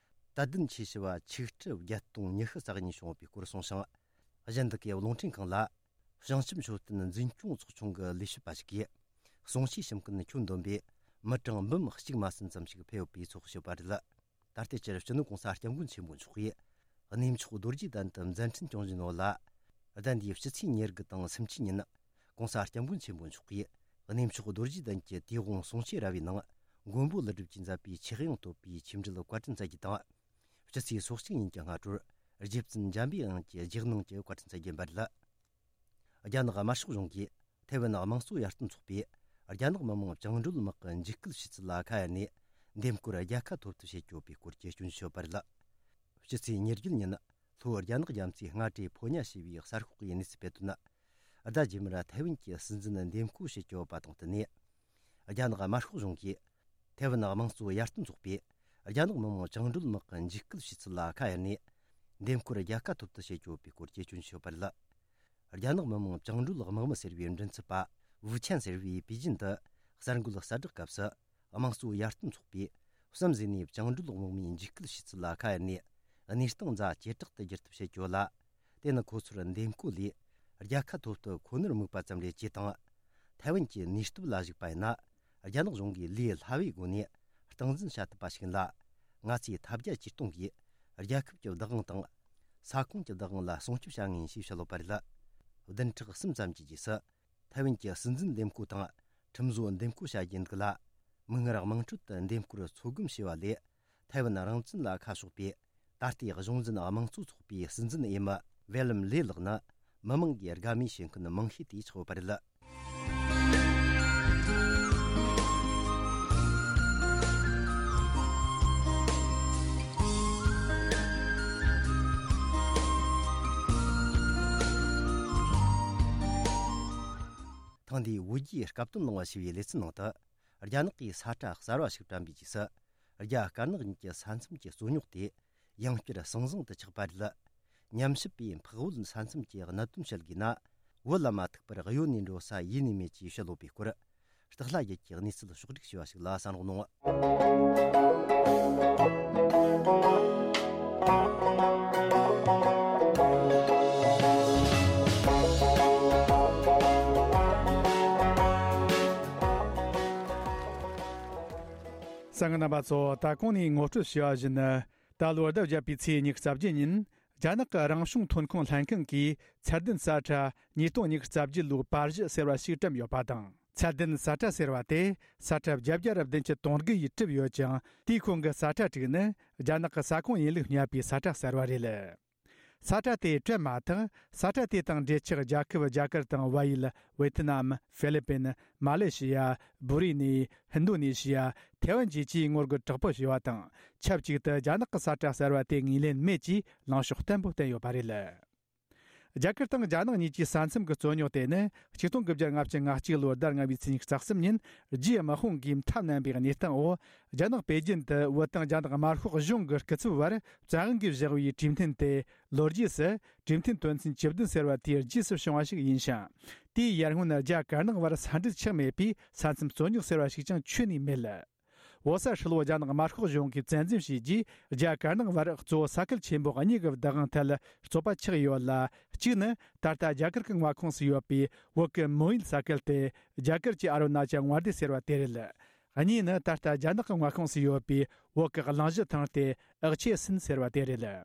དད་ལྡན་ཆོས་ཞུ་བ་ཆིག་ཁྲི་བརྒྱད་སྟོང་ཉི་ཤུ་རྩ་གཉིས་བྱུང་ཡོད་པའི་སྐོར་གསུངས་ཤིང་། གཞན་དག་གི་རླུང་འཕྲིན་ཁང་ལ། བྱང་ཆུབ་མཆོད་རྟེན་འཛིན་སྐྱོང་ཚོགས་ཆུང་གི་ལས་བྱེད་པ་ཞིག་གིས། གསུང་ཆོས་གསུང་མཁན་ཁྱོན་བསྡོམས་པས་མི་གྲངས་འབུམ་གཅིག་མ་ཟིན་ཙམ་ཞིག་ཕེབས་ཡོད་པའི་ཚོད་དཔག་བྱས་པ་རེད། ད་ལྟའི་ཆར་སྤྱི་ནོར་གོང་ས་སྐྱབས་མགོན་ཆེན་པོ་མཆོག་གིས་གནས་མཆོག་རྡོ་རྗེ་གདན་དུ་མཛད་འཕྲིན་སྐྱོང་བཞིན་ཡོད་ལ། ཟླ་འདིའི་སྤྱི་ཚེས་ཉེར་དགུ་དང་སུམ་ཅུ་ཉིན། གོང་ས་སྐྱབས་མགོན་ཆེན་པོ་མཆོག་གིས་གནས་མཆོག་རྡོ་རྗེ་གདན་གྱི་དུས་དབང་གསུང་ཆོས་ར་བའི་ནང་། མགོན་པོ་ཀླུ་སྒྲུབ་ཀྱིས་མཛད་པའི་ཆོས་དབྱིངས་བསྟོད་པའི་ཆོས་འབྲེལ་བཀའ་དྲིན་སྩལ་རྒྱུ་དང་། སྤྱི་ཚེས་སོ་གཅིག་ཉིན་གྱི་སྔ་དྲོར་རྗེ་བཙུན་འཇམ་པའི་དབྱངས་ཀྱི་རྗེས་གནང་གི་བཀའ་དྲིན་སྩལ་རྒྱུ་ཡིན་པ་རེད། རྒྱ་ནག་དམར་ཤོག་གཞུང་གིས་ཐའེ་ཝན་དམངས་གཙོ་ཡར་ཐོན་ཚོགས་པས་རྒྱ་ནག་མི་དམངས་བཅིངས་འགྲོལ་དམག་གི་འཇིགས་སྐུལ་བྱས་ཚུལ་ལ་ཁ་གཡར་ནས། འདེམས་བསྐོར་རྒྱལ་ཁ་ཐོབ་ཐབས་བྱེད་ཀྱི་ཡོད་པའི་སྐོར་གྱི་སྐྱོན་བརྗོད་ཡོད་པ་རེད། སྤྱི་ཚེས་ཉེར་བརྒྱད་ཉིན། ལྷོ་རྒྱ་ནག་རྒྱ་མཚོའི་སྔ་དྲོའི་ཕོ་ཉ་ཞེས་པའི་གསར་ཤོག་གིས་གནས་ཚུལ་སྤེལ་དོན། ཟླ་རྗེས་མར་ཐའེ་ཝན་གྱི་སྲིད་འཛིན་འདེམས་བསྐོ་བྱེད་ཀྱི་ཡོད་པ་དང་བསྟུན་ནས། རྒྱ་ནག་དམར་ཤོག་གཞུང་གིས་ཐའེ་ཝན་དམངས་གཙོ་ཡར་ཐོན་ཚོགས་པས་རྒྱ་ནག་མི་དམངས་བཅིངས་འགྲོལ་དམག་གི་འཇིགས་སྐུལ་བྱས་ཚུལ་ལ་ཁ་གཡར་ནས། འདེམས་བསྐོར་རྒྱལ་ཁ་ཐོབ་ཐབས་བྱེད་ཀྱི་ཡོད་པའི་སྐོར་གྱི་སྐྱོན་བརྗོད་ཡོད་པ་རེད། རྒྱ་ནག་མི་དམངས་བཅིངས་འགྲོལ་དམག་མི་ཟེར་བའི་མགྲིན་ཚབ་པ་ཝུ་ཆན་ཟེར་བས་པེ་ཅིན་དུ་གསར་འགོད་གསལ་བསྒྲགས་སྐབས་སུ། དམངས་གཙོ་ཡར་ཐོན་ཚོགས་པས་གསུམ་ཟིན་ནས་བཅིངས་འགྲོལ་དམག་མིའི་འཇིགས་སྐུལ་བྱས་ཚུལ་ལ་ཁ་གཡར་ནས། གནས་སྟངས་ཛ་ཇེ་དྲག་ཏུ་བསྒྱུར་ཐབས་བྱེད་རྒྱུ་ལ། དེ་ནི་ཁོ་ཚོར་འདེམས་བསྐོ་ལས་རྒྱལ་ཁ་ཐོབ་ཐབས་ཁོ་ནར་དམིགས་པ་ཙམ་རེད་ཅེས་དང་། ཐའེ་ཝན་གྱི་ནུས་སྟོབས་ལ་གཞིགས་པ་ཡིན་ན། རྒྱ་ནག་གཞུང་གིས་ལས་སླ་བའི་སྒོ་ནས་སྟངས་འཛིན་བྱ་ཐུབ་པ་ཞིག་ཡིན་ལ། ང་ཚོས་ཐབས་བརྒྱ་ཇུས་སྟོང་གིས་རྒྱལ་ཁབ་ཀྱི་བདག་དབང་དང་། ས་ཁོངས་ཀྱི་བདག་དབང་ལ་སྲུང་སྐྱོབ་བྱ་ངེས་ཞེས་བཤད་ཡོད་པ་རེད། བདུན་ཕྲག་གསུམ་ཙམ་གྱི་རྗེས་སུ། ཐའེ་ཝན་གྱི་སྲིད་འཛིན་འདེམས་བསྐོ་དང་། ཁྲིམས་བཟོ་འདེམས་བསྐོ་བྱ་རྒྱུ་འདུག་ལ། མིག་སྔར་དམངས་ཁྲོད་དུ་འདེམས་བསྐོར་ཚོད་བགམ་བྱས་པ་ལས། ཐའེ་ཝན་རང་བཙན་ལ་ཁ་ཕྱོགས་པའི་ད་ལྟའི་གཞུང་འཛིན་དམངས་གཙོ་ཚོགས་པའི་སྲིད་འཛིན་འོས་མི་ཝེ་ལམ་ལེ་ལགས་ནི། མི་མང་གིས་དགའ་མོས་བྱེད་མཁན་མང་ཤོས་དེ་ཆགས་ཡོད་པ་རེད། ཐེངས་འདིའི་བོད་རྒྱའི་སྐབས་དོན་གླེང་བ་ཞེས་པའི་ལེ་ཚན་ནང་དུ། རྒྱ་ནག་གིས་ས་ཁྲ་གསར་བ་ཞིག་བཀྲམ་པའི་རྗེས་སུ། རྒྱ་དཀར་ནག་གཉིས་ཀྱི་ས་མཚམས་ཀྱི་རྩོད་རྙོག་དེ་ཡང་བསྐྱར་ཟང་ཟིང་དུ་ཆགས་པ་རེད། ཉམས་ཞིབ་པས་འཕགས་བོད་ས་མཚམས་ཀྱི་གནད་དོན་བཤད་དགོས་ན། བོད་ལ་མ་ཐུག་པར་གཡོལ་ནས་འགྲོ་ས་ཡེ་ནས་མེད་ཅེས་བཤད་ཡོད་པའི་སྐོར། སྟག་ལྷ་རྒྱལ་གྱིས་གནས་ཚུལ་ཕྱོགས་བསྒྲིགས་བྱས་པ་ཞིག་ལ་གསན་རོགས་གནང་། གསན་མཁན་རྣམ་པ་ཚོ། ད་གོང་ནས་ངོ་སྤྲོད་བྱས་པ་བཞིན། ད་ལོ་ཟླ་བརྒྱད་པའི་ཚེས་ཉི་ཤུ་རྩ་བརྒྱད་ཉིན། རྒྱ་ནག་གི་རང་བྱུང་ཐོན་ཁུངས་ལྷན་ཁང་གིས་ཚད་ལྡན་ས་ཁྲ་ཉིས་སྟོང་ཉི་ཤུ་རྩ་བརྒྱད་ལོའི་པར་གཞི་ཟེར་བ་ཞིག་བཀྲམ་ཡོད་པ་དང་། ཚད་ལྡན་ས་ཁྲ་ཟེར་བ་དེ་ས་ཁྲ་བརྒྱད་བརྒྱ་ར་བདུན་ཅུ་དོན་དགུ་ཡིས་གྲུབ་ཡོད་ཅིང་། དེའི་ཁོངས་ཀྱི་ས་ཁྲ་དྲུག་ནི་རྒྱ་ནག་གི་ས་ཁོངས་ཡིན་ལུགས་བསྙད་པའི་ས་ཁྲ་གསར་བ་རེད། ས་ཁྲ་དེ་བཀྲམ་མ་ཐག་ས་ཁྲ་དེ་དང་འབྲེལ་ཆགས་རྒྱལ་ཁབ་རྒྱ་གར་དང་བལ་ཡུལ། ཝེ་ཐི་ནམ། ཧྥི་ལི་པིན། མ་ལེ་ཤི་ཡ། བྷུ་རི་ནི། ཧིན་རྡུ་ནེ་ཤི་ཡ། ཐའེ་ཝན་བཅས་ཀྱིས་ངོ་རྒོལ་དྲག་པོ་བྱས་པ་དང་། ཆབས་ཅིག་ཏུ་རྒྱ་ནག་གི་ས་ཁྲ་གསར་བ་དེ་ངོས་ལེན་མེད་ཅེས་ལངས་ཕྱོགས་བརྟན་པོ་བསྟན་ཡོད་པ་རེད། རྒྱ་གར་དང་རྒྱ་ནག་གཉིས་ཀྱི་ས་མཚམས་ཀྱི་རྩོད་རྙོག་དེ་ནི་ཆིག་སྟོང་དགུ་བརྒྱ་ལྔ་བཅུ་ང་གཅིག་ལོའི་ཟླ་ལྔ་པའི་ཚེས་ཉི་ཤུ་རྩ་གསུམ་ཉིན་རྒྱའི་དམག་དཔུང་གིས་མཐའ་བསྣམས་པའི་གནས་སྟངས་འོག་རྒྱ་ནག་པེ་ཅིན་དུ་བོད་དང་རྒྱ་ནག་དམར་ཤོག་གཞུང་གི་སྐུ་ཚབ་བར་བཙན་དབང་གིས་བཞག་པའི་གྲོས་མཐུན་དེ་ལོ་རྒྱུས་སུ་གྲོས་མཐུན་དོན་ཚན་བཅུ་བདུན་ཟེར་བ་དེའི་རྗེས་སུ་བྱུང་བ་ཞིག་ཡིན་ཞིང་། དེའི་ཡར་སྔོན་རྒྱ་དཀར་ནག་བར་ས་འབྲེལ་ཆགས་མེད་པས་ས་མཚམས་རྩོད་རྙོག་ཟེར་བ་ཞིག་ཀྱང་ཆོད་ནས་མེད། བོད་ས་ཧྲིལ་བོ་རྒྱ་ནག་དམར་ཤོག་གཞུང་གིས་བཙན་འཛུལ་བྱས་རྗེས། རྒྱ་དཀར་ནག་བར་གཙོ་བོ་ས་ཁུལ་ཆེན་པོ་གཉིས་ཀྱི་བདག་དབང་ཐད་རྩོད་པ་ཆགས་ཡོད་ལ། གཅིག་ནི་ད་ལྟ་རྒྱ་གར་གྱི་མངའ་ཁོངས་སུ་ཡོད་པའི་བོད་ཀྱི་མོན་ཡུལ་ས་ཁུལ་ཏེ། རྒྱ་གར་གྱི་ཨ་རུ་ན་ཅལ་མངའ་སྡེ་ཟེར་བ་དེ་རེད། གཉིས་ནི་ད་ལྟ་རྒྱ་ནག་གི་མངའ་ཁོངས་སུ་ཡོད་པའི་བོད་ཀྱི་གླིང་བཞི་ཐང་སྟེ། ཨག་ཆེ་སིན་ཟེར་བ་དེ་རེད།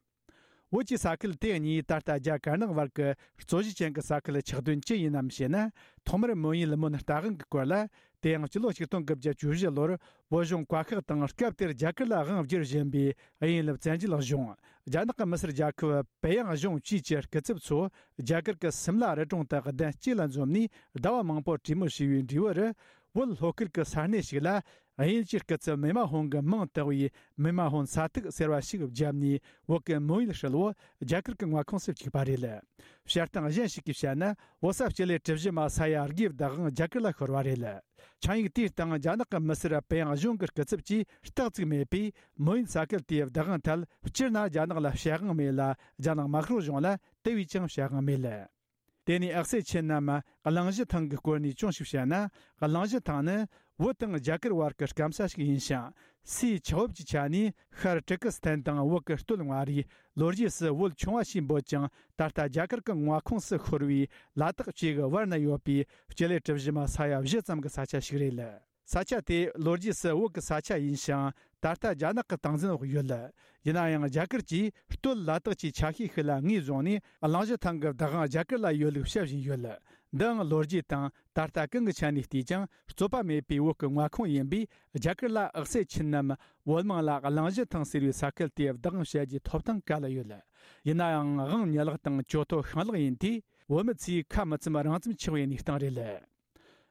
བོད་ཀྱི་ས་ཁུལ་དེ་གཉིས་ད་ལྟ་རྒྱ་དཀར་ནག་བར་གྱི་རྩོད་གཞི་ཅན་གྱི་ས་ཁུལ་ཆགས་དོན་ཅི་ཡིན་ནམ་ཞེ་ན། ཐོག་མར་མོན་ཡུལ་མོན་རྟ་དབང་གི་སྐོར་ལ། དེའང་སྤྱི་ལོ་ཆིག་སྟོང་དགུ་བརྒྱ་བཅུ་བཞི་ལོར་བོད་གཞུང་བཀའ་ཤག་དང་། སྐབས་དེར་རྒྱ་གར་ལ་དབང་བསྒྱུར་བཞིན་པའི་དབྱིན་ལུབ་བཙན་བྱོལ་གཞུང་། རྒྱ་ནག་གི་མི་སེར་རྒྱལ་ཁབ་པེ་ཡང་གཞུང་བཅས་ཀྱི་སྐུ་ཚབ་ཚོ་རྒྱ་གར་གྱི་སིམ་ལ་རི་གྲོང་དུ་གདན་གཅིག་ལ་འཛོམས་ནས་ཟླ་བ་མང་པོར་གྲོས་མོལ་བྱས་པའི་འབྲས་བུར། བོད་ལྷོ་ཁུལ་གྱི་ས་གནས་ཤིག་ལ། དབྱིན་ཇིའི་སྐུ་ཚབ་མི་མ་ཧོང་གི་མིང་བཏགས་པའི་མི་མ་ཧོང་ས་ཐིག་ཟེར་བ་ཞིག་བརྒྱབ་ནས། བོད་ཀྱི་མོན་ཡུལ་ཧྲིལ་བོ་རྒྱ་གར་གྱི་མངའ་ཁོངས་སུ་བཅུག་པ་རེད། བཤད་སྟངས་གཞན་ཞིག་གིས་བཤད་ན། བོད་ས་སྤྱི་ལེ་གྲུ་བཞི་མ་ས་ཡ་དགུའི་བདག་དབང་རྒྱ་གར་ལ་ཤོར་བ་རེད། ཆིངས་ཡིག་དེའི་སྟེང་རྒྱ་ནག་གི་མི་སེར་པེ་ཡང་གཞུང་གི་སྐུ་ཚབ་ཀྱིས་རྟགས་བཙུགས་མེད་པས། མོན་ཡུལ་ས་ཁུལ་དེའི་བདག་དབང་ཐད་སྤྱིར་ན་རྒྱ་ནག་ལ་བྱ་དབང་མེད་ལ། རྒྱ་ནག་དམར་ཤོག་གཞུང་ལ་དེ་བས་ཀྱང་བྱ་དབང་མེད། དེ་ནས་ཨག་སེ་ཆི་ནམ་གླིང་བཞི་ཐང་གི་སྐོར་ནས་ཅུང་ཞིག་བཤད་ན། གླིང་བཞི་ཐང་ནི་བོད་དང་རྒྱ་གར་བར་གྱི་སྐམ་ས་ཞིག་ཡིན་ཞིང་། སའི་ཆགས་བབ་ཀྱི་ཆ་ནས་ཤར་ཏུར་ཀི་སི་ཐན་དང་བོད་ཀྱི་སྟོད་མངའ་རིས། ལོ་རྒྱུས་སུ་བོད་ཆུང་བ་ཞེས་འབོད་ཅིང་། ད་ལྟ་རྒྱ་གར་གྱི་མངའ་ཁོངས་སུ་ཤོར་བའི་ལ་དྭགས་བཅས་ཀྱི་བར་ན་ཡོད་པའི་སྤྱི་ལེ་གྲུ་བཞི་མ་ས་ཡ་བཞི་ཙམ་གྱི་ས་ཆ་ཞིག་རེད། ས་ཆ་དེ་ལོ་རྒྱུས་སུ་བོད་ཀྱི་ས་ཆ་ཡིན་ཞིང་། ད་ལྟ་རྒྱ་ནག་གི་སྟངས་འཛིན་འོག་ཡོད། ཡིན་ན་ཡང་རྒྱ་གར་གྱིས་སྟོད་ལ་དྭགས་ཀྱི་ཆ་ཤས་ཤིག་ལ་ངོས་བཟུང་ནས། གླིང་བཞི་ཐང་གི་བདག་དབང་རྒྱ་གར་ལ་ཡོད་ལུགས་བཤད་བཞིན་ཡོད། འདིའང་ལོ་རྒྱུས་དང་ད་ལྟ་གང་གི་ཆ་ནས་བལྟས་ཀྱང་རྩོད་པ་མེད་པའི་བོད་ཀྱི་མངའ་ཁོངས་ཡིན་པས། རྒྱ་གར་ལ་ཨག་སེ་ཆི་ནམ་བོད་དམངས་ལ་གླིང་བཞི་ཐང་ཟེར་བའི་ས་ཁུལ་དེའི་བདག་དབང་བྱ་རྒྱུའི་ཐོབ་ཐང་ག་ལ་ཡོད། ཡིན་ན་ཡང་དབང་ཉེས་ལག་དང་གྱོད་ཐོ་ཤིང་ལག་ཡིན་དུས། བོད་མི་ཚོས་ཁ་མི་ཚུམ་རང་ཚུམ་ཆགས་པའི་གནས་སྟངས་རེད།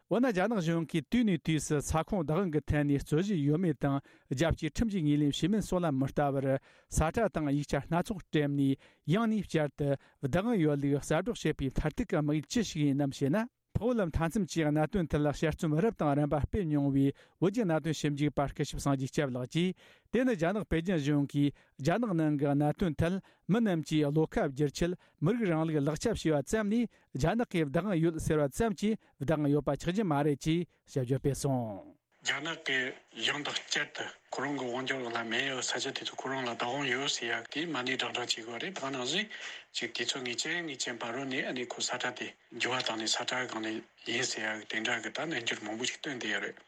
འོ་ན། རྒྱ་ནག་གཞུང་གིས་དུས་ནས་དུས་སུ་ས་ཁོངས་བདག་དབང་གི་ཐད་ནས་རྩོད་གཞི་ཡོད་མེད་དང་། རྒྱལ་སྤྱིའི་ཁྲིམས་ཀྱི་ངོས་ལེན་བྱས་མིན་སོགས་ལ་མི་ལྟ་བར། ས་ཁྲ་དང་ཡིག་ཆ་སྣ་ཚོགས་སྤྲད་ནས། ཡང་ནས་བསྐྱར་དུ་བདག་དབང་ཡོད་ལུགས་གསལ་སྒྲོག་བྱེད་པའི་མཐར་ཐུག་གི་དམིགས་ཡུལ་ཅི་ཞིག་ཡིན་ནམ་ཞེ་ན། འཕགས་བོད་མཐའ་མཚམས་ཀྱི་གནད་དོན་ཐད་ལ་དཔྱད་རྩོམ་རབ་དང་རིམ་པ་སྤེལ་མྱོང་བའི་བོད་ཀྱི་གནད་དོན་ཞིབ་འཇུག་པ་སྐུ་ཞབས་སངས་རྒྱས་སྐྱབས་ལགས་ཀྱིས། དེ་ནི་རྒྱ་ནག་པེ་ཅིན་གཞུང་གིས་རྒྱ་ནག་ནང་གི་གནད་དོན་ཐད། མི་རྣམས་ཀྱིས་བློ་ཁ་བསྒྱུར་ཆེད་མི་རིགས་རིང་ལུགས་ལག་ཆ་བྱས་པ་ཙམ་ནས། རྒྱ་ནག་གིས་བདག་དབང་ཡོད་ཟེར་བ་ཙམ་གྱིས་བདག་དབང་ཡོད་པ་ཆགས་ཀྱི་མ་རེད་ཅེས་དཔྱད་བརྗོད་སྤེལ་སོང་། རྒྱ་ནག་གིས་ཡང་དང་བསྐྱར་དུ་ཁོ་རང་གི་དབང་སྒྱུར་ལ་མེད་ཡོད་ས་ཆ་དེ་ཚོ་ཁོ་རང་ལ་བདག་དབང་ཡོད་ཟེར་ཡག་དེ་མ་ཎི་བགྲང་བགྲང་བྱེད་དགོས་རེད། ད་ནང་བཞིན་ཅིག་དུས་ཚོད་ངེས་ཅན་ངེས་ཅན་བར་རོལ་ནས་ཨ་ནི་ཁོ་ས་ཁྲ་དེ་འགྱུར་བ་བཏང་ནས་ས་ཁྲ་སྒང་ནས་ཡིན་ཟེར་ཡག་དེ་འདྲ་གི་ད་རྣལ་འབྱོར་མང་པོ་ཞིག་བཏོན་བསྡད་ཡོད་རེད།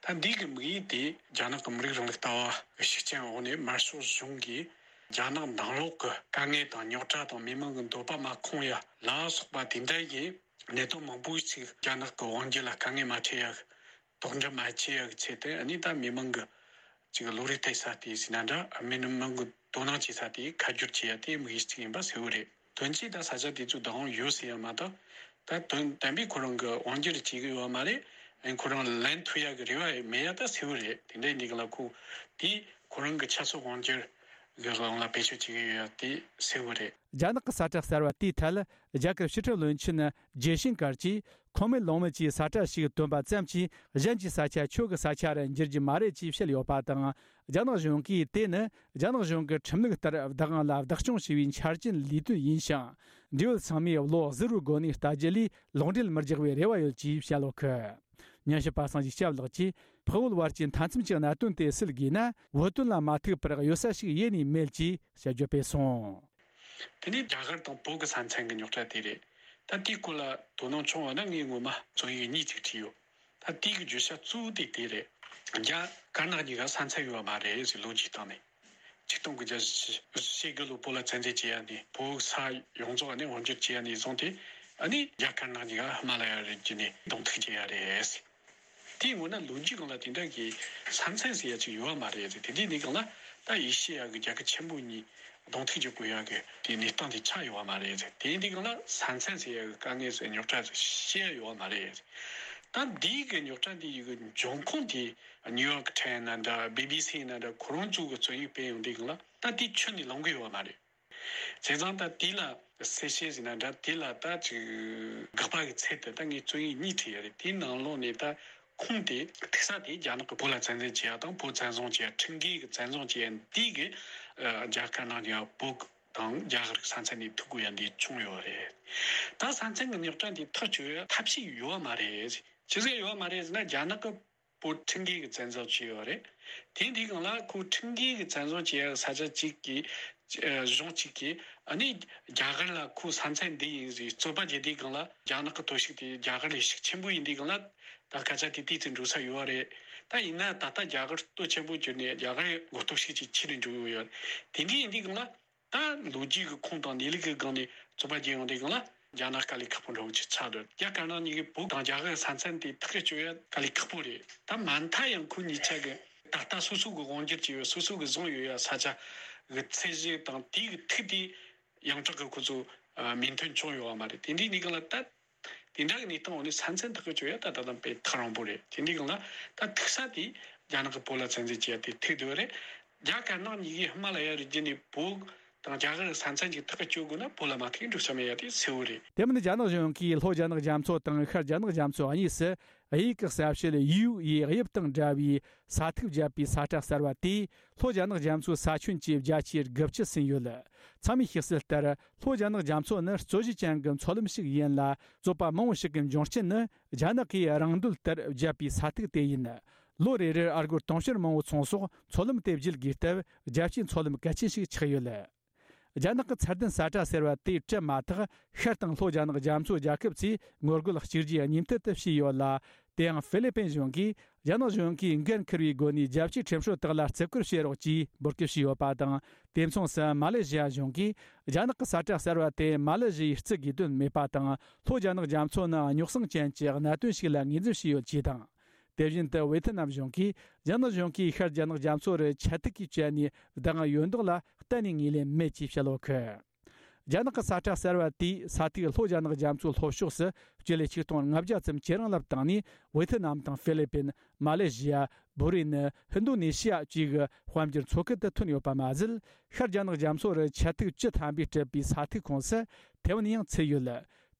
ད་འདི་གི་དམིགས་ཡུལ་དེ་རྒྱ་ནག་གི་མི་རིགས་རིང་ལུགས་ལྟ་བ་གི་ཤུགས་རྐྱེན་འོག་ནས་དམར་ཤོག་གཞུང་གིས་རྒྱ་ནག་ནང་ལོགས་ཀྱི་དཀའ་ངལ་དང་རྙོག་དྲ་དང་མི་མང་གི་འདོད་པ་མ་ཁོང་ཡ་ལ་སོགས་པ་དེ་འདྲ་ཡི་གནད་དོན་མང་པོ་ཞིག་རྒྱ་ནག་གི་དབང་སྒྱུར་ལ་དཀའ་ངལ་མ་འཕྲད་ཡ་གི་དོགས་འདྲི་མ་བྱེད་ཡ་གི་ཆེད་དུ། ཨ་ནི་ད་མི་མང་གི་ཅིག་བློ་རིག་གཏད་ས་དེ་ཟེར་ན་འདྲ། མི་མང་གི་དོ་སྣང་བྱེད་ས་དེ་ཁ་བསྒྱུར་བྱེད་ཡ་དེ་དམིགས་ཡུལ་གཅིག་ཡིན་པ་གསལ་བོ་རེད། དོན་གཅིག་ད་ས་ཆ་དེ་ཚོ་བདག་དབང་ཡོད་ཟེར་ཡ་མ་གཏོགས། ད་དོན་དམ་པའི་ཁོ་རང་གི་དབང་སྒྱུར་བྱེད་ཀྱི་ཡོད་མ་རེད། ཨ་ནི་ཁོ་རང་ལན་ཐུབ་ཡག་གི་རེ་བ་མེད་ཡ་ད་གསལ་བོ་རེད། དེ་འདྲ་ཡིན་དུས་ག་ལ་ཁོ་དེ་ཁོ་རང་གི་ཆབ་སྲིད་དབང་སྒྱུར་གི་ལམ་ལ་བེད་སྤྱོད་བྱེད་ཀྱི་ཡོད་ཡ་དེ་གསལ་བོ་རེད། རྒྱ་ནག་གི་ས་ཁྲ་གསར་བ་དེའི་ཐད། རྒྱ་གར་ཕྱི་ཁྲིམས་བློན་ཆེན་ཇེ་ཤང་ཀར་གྱིས། ཁུངས་མེད་ལུང་མེད་ཀྱི་ས་ཁྲ་ཞིག་བཏོན་པ་ཙམ་གྱིས་གཞན་གྱི་ས་ཆ་ཁྱོད་ཀྱི་ས་ཆ་རུ་འགྱུར་རྒྱུ་མ་རེད་ཅེས་བཤད་ཡོད་པ་དང་། རྒྱ་ནག་གཞུང་གིས་དེ་ནི་རྒྱ་ནག་གཞུང་གི་ཁྲིམས་ལུགས་ལྟར་བདག་དབང་ལ་བདག་སྐྱོང་བྱས་པའི་འཆར་ཅན་ལས་དོན་ཡིན་ཞིང་། འབྲེལ་ཡོད་ཚང་མས་བློ་གཟུ་བོའི་སྒོ་ནས་ལྟ་རྒྱུ་ལས་ལུང་འབྲེལ་མི་རྒྱག་པའི་རེ་བ་ཡོད་ཅེས་བཤད་ཡོད་གི། ཉན་ཞིབ་པ་སངས་རྒྱས་སྐྱབས་ལགས་ཀྱིས། འཕགས་བོད་བར་གྱི་མཐའ་མཚམས་ཀྱི་གནད་དོན་དེ་སེལ་དགོས་ན། བོད་དོན་ལ་མ་ཐུག་པར་གཡོལ་ས་ཞིག་ཡེ་ནས་མེད་ཅེས་དཔྱད་བརྗོད་སྤེལ་སོང་། དེ་ནས་རྒྱ་གར་དང་བོད་ཀྱི་ས་མཚམས་ཀྱི་རྙོག་དྲ་དེ་རེད། ད་དེའི་སྐོར་ལ་དོ་སྣང་བྱུང་བ་ན། ངས་ངོ་མ་རྩོམ་ཡིག་གཉིས་ཅིག་བྲིས་ཡོད། ད་དེའི་གི་བརྗོད་བྱ་གཙོ་བོ་དེ་དེ་རེད། རྒྱ་དཀར་ནག་གཉིས་ཀ་ས་མཚམས་ཡོད་པ་མ་རེད་ཟེར། ལོ་རྒྱུས་སྟེང་ནས་ཆིག་སྟོང་དགུ་བརྒྱ་ཞེ་དགུ་ལོ་བོད་ལ་བཙན་འཛུལ་བྱས་ཡ་ནས། བོད་ས་ཡོངས་རྫོགས་ནས་དབང་སྒྱུར་བྱས་ཡ་ནས་བཟུང་སྟེ། ཨ་ནི་རྒྱ་དཀར་ནག་གཉིས་ཀ་ཧི་མ་ལ་ཡ་རི་རྒྱུད་ནས་གདོང་ཐུག་བྱས་ཡ་རེད། དེའི་སྔོན་ན་ལོ་རྒྱུས་སྒང་ལ་དེ་འདྲ་གི་ས་མཚམས་ཟེར་ཡ་ཅིག་ཡོད་པ་མ་རེད་ཟེར། དེ་དུས་ནས་སྒང་ལ་ད་ཨེ་ཤེ་ཡ་གི་རྒྱལ་ཁབ་ཆེན་པོ་གཉིས་གདོང་ཐུག་བྱེད་དགོས་ཡ་གི་དེ་གནས་སྟངས་དེ་ཆགས་ཡོད་པ་མ་རེད་ཟེར། དེ་དུས་སྒང་ལ་ས་མཚམས་ཟེར་ཡ་གི་དཀའ་ངལ་ཟེར། རྙོག་དྲ་ཟེར་བཤད་ཡ་ཡོད་པ་མ་རེད་ཟེར། ད་འདིའི་གི་རྙོག་དྲ་འདི་ཡི་གི་འབྱུང་ཁུངས་དེ་ནིའུ་ཡོག་ཊའིམ་ན་འདྲ། བི་བི་སི་ན་འདྲ། ཁོ་རང་ཚོ་གི་རྩོམ་ཡིག་སྤེལ་ཡོང་དུས་སྒང་ལ་ད་དེ་ཁྱོན་ནས་ལོངས་ཀྱི་ཡོད་པ་མ་རེད། བྱས་ཙང་ད་དེ་ལ་གསལ་བཤད་ཟེར་ན་འདྲ། དེ་ལ་ད་ཅིག་དགག་པ་གི་ཚད་དུ་ད་ངས་རྩོམ་ཡིག་གཉིས་བྲིས་ཡོད་རེད། དེའི་ནང་ལོགས་ནས་ད་ཁུངས་དེ་ཐུག་ས་དེ་རྒྱ་ནག་གི་བོད་ལ་བཙན་འཛུལ་བྱས་ཡ་དང་། བོད་བཙན་བཟུང་བྱས་ཡ། ཁྲིམས་འགལ་གི་བཙན་བཟུང་བྱས་ཡ་འདི་གི་ཨ་རྒྱ་དཀར་ནག་གཉིས་ཀ་བོད་དང་རྒྱ་གར་གི་ས་མཚམས་ནས་ཐུག་དགོས་ཡ་འདི་བྱུང་ཡོད་རེད། ད་ས་མཚམས་གི་རྙོག་དྲ་འདི་ཐག་གཅོད་ཡ་ཐབས་ཤེས་ཡོད་པ་མ་རེད། ཅི་ཟེར་ཡོད་པ་མ་རེད་ཟེར་ན། རྒྱ་ནག་གི་ བོད་ཁྲིམས་འགལ་གྱི་བཙན་བཟུང་བྱས་ཡོད་རེད། དེ་འདི་སྒང་ལ་ཁོ་ཁྲིམས་འགལ་གྱི་བཙན་བཟུང་བྱས་ཡ་ས་ཆ་གཅིག་གི་ཨ་གཞུང་གཅིག་གིས་ཨ་ནི་རྒྱ་གར་ལ་ཁོ་ས་མཚམས་འདི་ཡིན་ཟེར་རྩོད་པ་བརྒྱབ་དུས་སྒང་ལ། རྒྱ་ནག་གི་གཏོར་བཤིག་དེ་རྒྱ་གར་ལས་ཤུགས་ཆེན་པོ་ཡིན་དུས་སྒང་ལ། ད་སྐད་ཆ་དེ་དུས་ཚོད་འགྲོ་ས་ཡོད་རེད། ད་ཡིན་ན་ད་ལྟ་རྒྱ་གར་སྟོབས་ཆེན་པོ་གྱུར་ནས་རྒྱ་གར་མགོ་སྟོབས་ཤུགས་ཆེ་ཆེ་རུ་འགྲོ་ཡོད་ཡོད། དེ་འདྲ་ཡིན་དུས་སྒང་ལ། ད་ལོ་རྒྱུས་ཀྱི་ཁུངས་དང་གནས་ལུགས་ཀྱི་སྒང་ནས་རྩོད་པ་བརྒྱབ་ཡོང་དུས་སྒང་ལ། རྒྱ་ནག་དཀའ་ལས་ཁག་པོ་འགྲོ་གི་ཆགས་འདུག་རྒྱ་དཀར་ནག་གཉིས་ཀྱིས་བོད་དང་རྒྱ་གར་ས་མཚམས་དེ་ཐག་གཅོད་ཡ་དཀའ་ལས་ཁག་པོ་རེད། ད་མ་མཐའ་ཡང་ཁོ་གཉིས་ཆ་གི་ད་ལྟ་སོ་སོ་གི་དབང་སྒྱུར་བྱས་ཡོད། སོ་སོ་གི་བཟུང་ཡོད་ཡ་ས་ཆ་གི་ཚད་གཞི་དང་དེ་གི་ཐིག་དེ་ཡོངས་གྲགས་ཀྱི་ཁོ་ཚོ་མོས་མཐུན་བྱུང་ཡོད་པ་མ་རེད། དེ་འདྲའི་གནས་སྟངས་ལ་ད། དེ་འདྲ་གི་གནས་སྟངས་འོག་ནས་ས་མཚམས་ཐག་གཅོད་ཡ་ད་ད་དུང་དཔེ་ཐག་རིང་པོ་རེད། དེ་འདྲའི་སྒང་ལ་ད་ཐུག་ས་དེ་རྒྱ་ནག་གིས་བོད་ལ་བཙན་འཛུལ་བྱས་ཡ་དེ་ཐུག་བསྡད་ཡོད་རེད། རྒྱ་དཀར་ནག་གཉིས་ཀས་ཧི་མ་ལ་ཡ་རི་རྒྱུད་ནས་བོད་དང་རྒྱ་གར་ས་མཚམས་ཅིག་ཐག་གཅོད་དགོས་ན་བོད་ལ་མ་ཐུག་འགྲོ་ས་མེད་ཡ་དེ་གསལ་བོ་རེད། དེ་མིན་རྒྱ་ནག་གཞུང་གིས་ལྷོ་རྒྱ་ནག་རྒྱ་མཚོ་དང་ཤར་རྒྱ་ནག་རྒྱ་མཚོ་གཉིས་སུ་དབྱིན་ཡིག་གི་གསལ་བྱེད་ཡུའུ་ཡི་དབྱིབས་དང་འདྲ་བའི་ས་ཐིག་བརྒྱབ་པའི་ས་ཁྲ་གསར་བ་དེས་ལྷོ་རྒྱ་ནག་རྒྱ་མཚོའི་ས་ཁྱོན་གྱི་བརྒྱ་ཆའི་དགུ་བཅུ་ཟིན་ཡོད། ཚང་མས་ཤེས་གསལ་ལྟར། ལྷོ་རྒྱ་ནག་རྒྱ་མཚོ་ནི་རྩོད་གཞི་ཅན་གྱི་མཚོ་ལམ་ཞིག་ཡིན་ལ། རྩོད་པ་མང་བོ་ཞིག་གི་འབྱུང་རྐྱེན་ནི་རྒྱ་ནག་གིས་རང་འདོད་ལྟར་བརྒྱབ་པའི་ས་ཐིག་དེ་ཡིན། ལོ་རེ་རེར་ཨ་སྒོར་དུང་ཕྱུར་མང་བོ་ཚོང་སོགས་མཚོ་ལམ་དེ་བརྒྱུད་དགོས་སྟབས། རྒྱལ་སྤྱིའི་མཚོ་ལམ་གལ་ཆེན་ཞིག་ཆགས་ཡོད། རྒྱ་ནག་གི་ཚད་ལྡན་ས་ཁྲ་ཟེར་བ་དེ་བྲལ་མ་ཐག་ཤར་དང་ལྷོ་རྒྱ་ནག་རྒྱ་མཚོ་རྒྱལ་ཁབ་ཚོས་ངོ་རྒོལ་གཅིག་རྗེས་གཉིས་མཐུད་དུ་བྱས་ཡོད་ལ། དེའང་ཧྥི་ལི་པིན་གཞུང་གིས་རྒྱ་ནག་གཞུང་གིས་འགན་འཁུར་བའི་སྒོ་ནས་རྒྱལ་སྤྱིའི་ཁྲིམས་སྲོལ་དག་ལ་བརྩི་བཀུར་བྱེད་རོགས་ཅེས་འབོད་སྐུལ་བྱས་ཡོད་པ་དང་། དེ་མཚུངས་སུ་མ་ལེ་ཞི་ཡ་གཞུང་གིས་རྒྱ་ནག་གི་ས་ཁྲ་གསར་བ་དེ་མ་ལེ་ཞི་ཡས་བརྩི་དགོས་དོན་མེད་པ་དང་། ལྷོ་རྒྱ་ནག་རྒྱ་མཚོ་ནི་རྙོག་ཟིང་ཅན་གྱི་གནད་དོན་ཞིག་ལ་ངོས་འཛིན་བྱས་ཡོད་ཅེས་དང་། དེ་བཞིན་དུ་ཝེ་ཐི་ནམ་གཞུང་གིས་རྒྱ་ནག་གཞུང་གིས་ཤར་རྒྱ་ནག་རྒྱ་མཚོ་རུ་ཆ་ཐིག་གིས་བཅད་ནས་བདག་དབང་ཡོད་མདོག་ལ་གཏན་ནས་ངོས་ལེན་མེད་ཅེས་བཤད་ཡོད་གི། རྒྱ་ནག་གི་ས་ཁྲ་གསར་བ་དེས་ས་ཐིག་ལྷོ་རྒྱ་ནག་རྒྱ་མཚོའི་ལྷོ་ཕྱོགས་སུ་སྤྱི་ལེ་ཆིག་སྟོང་ལྔ་བརྒྱ་ཙམ་ཇེ་རིང་ལ་བཏང་ནས། ཝེ་ཐི་ནམ་དང་ཧྥི་ལི་པིན། མ་ལེ་ཞི་ཡ། བྷུ་རེ་ནི། ཧིན་དོ་ནེ་ཤི་ཡ་བཅས་ཀྱི་དཔལ་འབྱོར་མཚོ་ཁུལ་དུ་ཐོན་ཡོད་པ་མ་ཟད། ཤར་རྒྱ་ནག་རྒྱ་མཚོ་རུ་ཆ་ཐིག་བཅུ་ཐམ་པས་གྲུབ་པའི་ས་ཐིག་ཁོངས་སུ་ཐེ་ཝན་ཡང་ཚུད་ཡོད།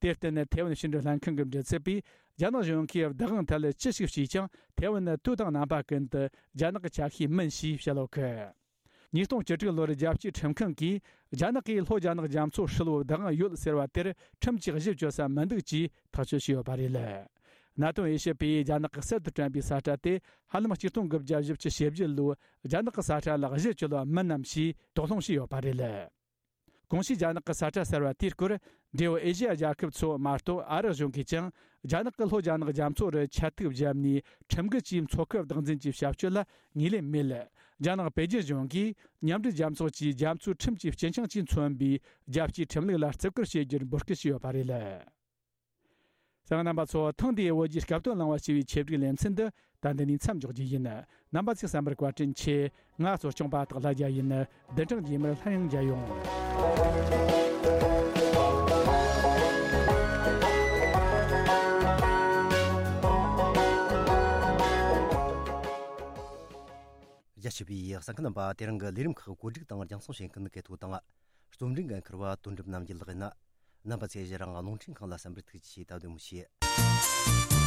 དེར་བརྟེན། ཐེ་ཝན་ཕྱི་འབྲེལ་ལྷན་ཁང་གི་མགྲིན་ཚབ་པས། རྒྱ་ནག་གཞུང་གིས་བདག་དབང་ཐད་ལ་ཅི་ཞིག་བྱས་ཀྱང་། ཐེ་ཝན་ནི་དུས་དང་རྣམ་པ་ཀུན་ཏུ་རྒྱ་ནག་གི་ཆ་ཤས་མིན་ཞེས་བཤད་ཡོད་གི། ཉིས་སྟོང་བཅུ་དྲུག་ལོར་རྒྱལ་སྤྱིའི་ཁྲིམས་ཁང་གིས། རྒྱ་ནག་གིས་ལྷོ་རྒྱ་ནག་རྒྱ་མཚོ་ཧྲིལ་བོ་བདག་དབང་ཡོད་ཟེར་བ་དེར་ཁྲིམས་ཀྱིས་གཞི་བཅོལ་ས་མི་འདུག་ཅེས་ཐག་གཅོད་བྱས་ཡོད་པ་རེད། གནད་དོན་དབྱེ་ཞིབ་པས། རྒྱ་ནག་གིས་གསར་དུ་བསྐྲུན་པའི་ས་ཁྲ་དེ་ཧ་ལམ་ཆིག་སྟོང་དགུ་བརྒྱ་བཞི་བཅུ་ཞེ་བརྒྱད་ལོའི་རྒྱ་ནག་གི་ས་ཁྲ་ལ་གཞི་བཅོལ་བ་མིན་ནམ་ཞེས་དོགས་སློང་བྱས་ཡོད་པ་རེད། གོང་ཞུས་རྒྱ་ནག་གི་ས་ཁྲ་གསར་བ་དེའི་སྐོར། འབྲེལ་ཡོད་ཨེ་ཤེ་ཡ་རྒྱལ་ཁབ་ཚོ་མ་གཏོགས། ཨ་རི་གཞུང་གིས་ཀྱང་། རྒྱ་ནག་གིས་ལྷོ་རྒྱ་ནག་རྒྱ་མཚོ་རུ་ཆ་ཐིག་བརྒྱབ་ནས་ཁྲིམས་འགལ་གྱིས་མཚོ་ཁུལ་བདག་འཛིན་གྱི་བྱ་སྤྱོད་ལ་ངོས་ལེན་མེད། རྒྱ་ནག་པེ་ཅིན་གཞུང་གིས་མཉམ་འབྲེལ་རྒྱལ་ཚོགས་ཀྱི་རྒྱ་མཚོའི་ཁྲིམས་ཀྱི་སྤྱི་འཆིང་གིས་མཚོན་པའི་རྒྱལ་སྤྱིའི་ཁྲིམས་ལུགས་ལ་བརྩི་བཀུར་བྱེད་རྒྱུར་འབོད་སྐུལ་བྱས་ཡོད་པ་རེད། གསན་མཁན་རྣམ་པ་ཚོ། ཐེངས་འདིའི་བོད་ཀྱི་སྐབས་དོན་གླེང་བ་ཞེས་པའི་ཆེད་བསྒྲིགས་ལེ་ཚན་འདི་ད་འདི་ནས་མཚམས་འཇོག་རྒྱུ་ཡིན། རྣམ་པ་ཚོས་གསན་པར་བཀའ་དྲིན་ཆེ། ང་གཙོ་སྐྱོང་པ་སྟག་ལྷ་རྒྱལ་ཡིན། བདུན་ཕྲག་རྗེས་མར་སླར་ཡང་མཇལ་ཡོང་། རྒྱ་ཆེ་བའི་གསན་མཁན་རྣམ་པ། དེ་རིང་གི་ལས་རིམ་ཁག་བཀོད་སྒྲིག་དང་རྒྱང་སྲིང་བྱེད་མཁན་གལ་ཐོ་དང་། རྩོམ་སྒྲིག་འགན་འཁུར་བ་དོན་གྲུབ་རྣམ་རྒྱལ་ལགས་ཡིན། རྣམ་པ་ཚོས་གཞི་རང་རླུང་འཕྲིན་ཁང་ལ་གསན་པར་ཐུགས་རྗེ་ཆེ། ད་བདེ་མོ་བྱོས།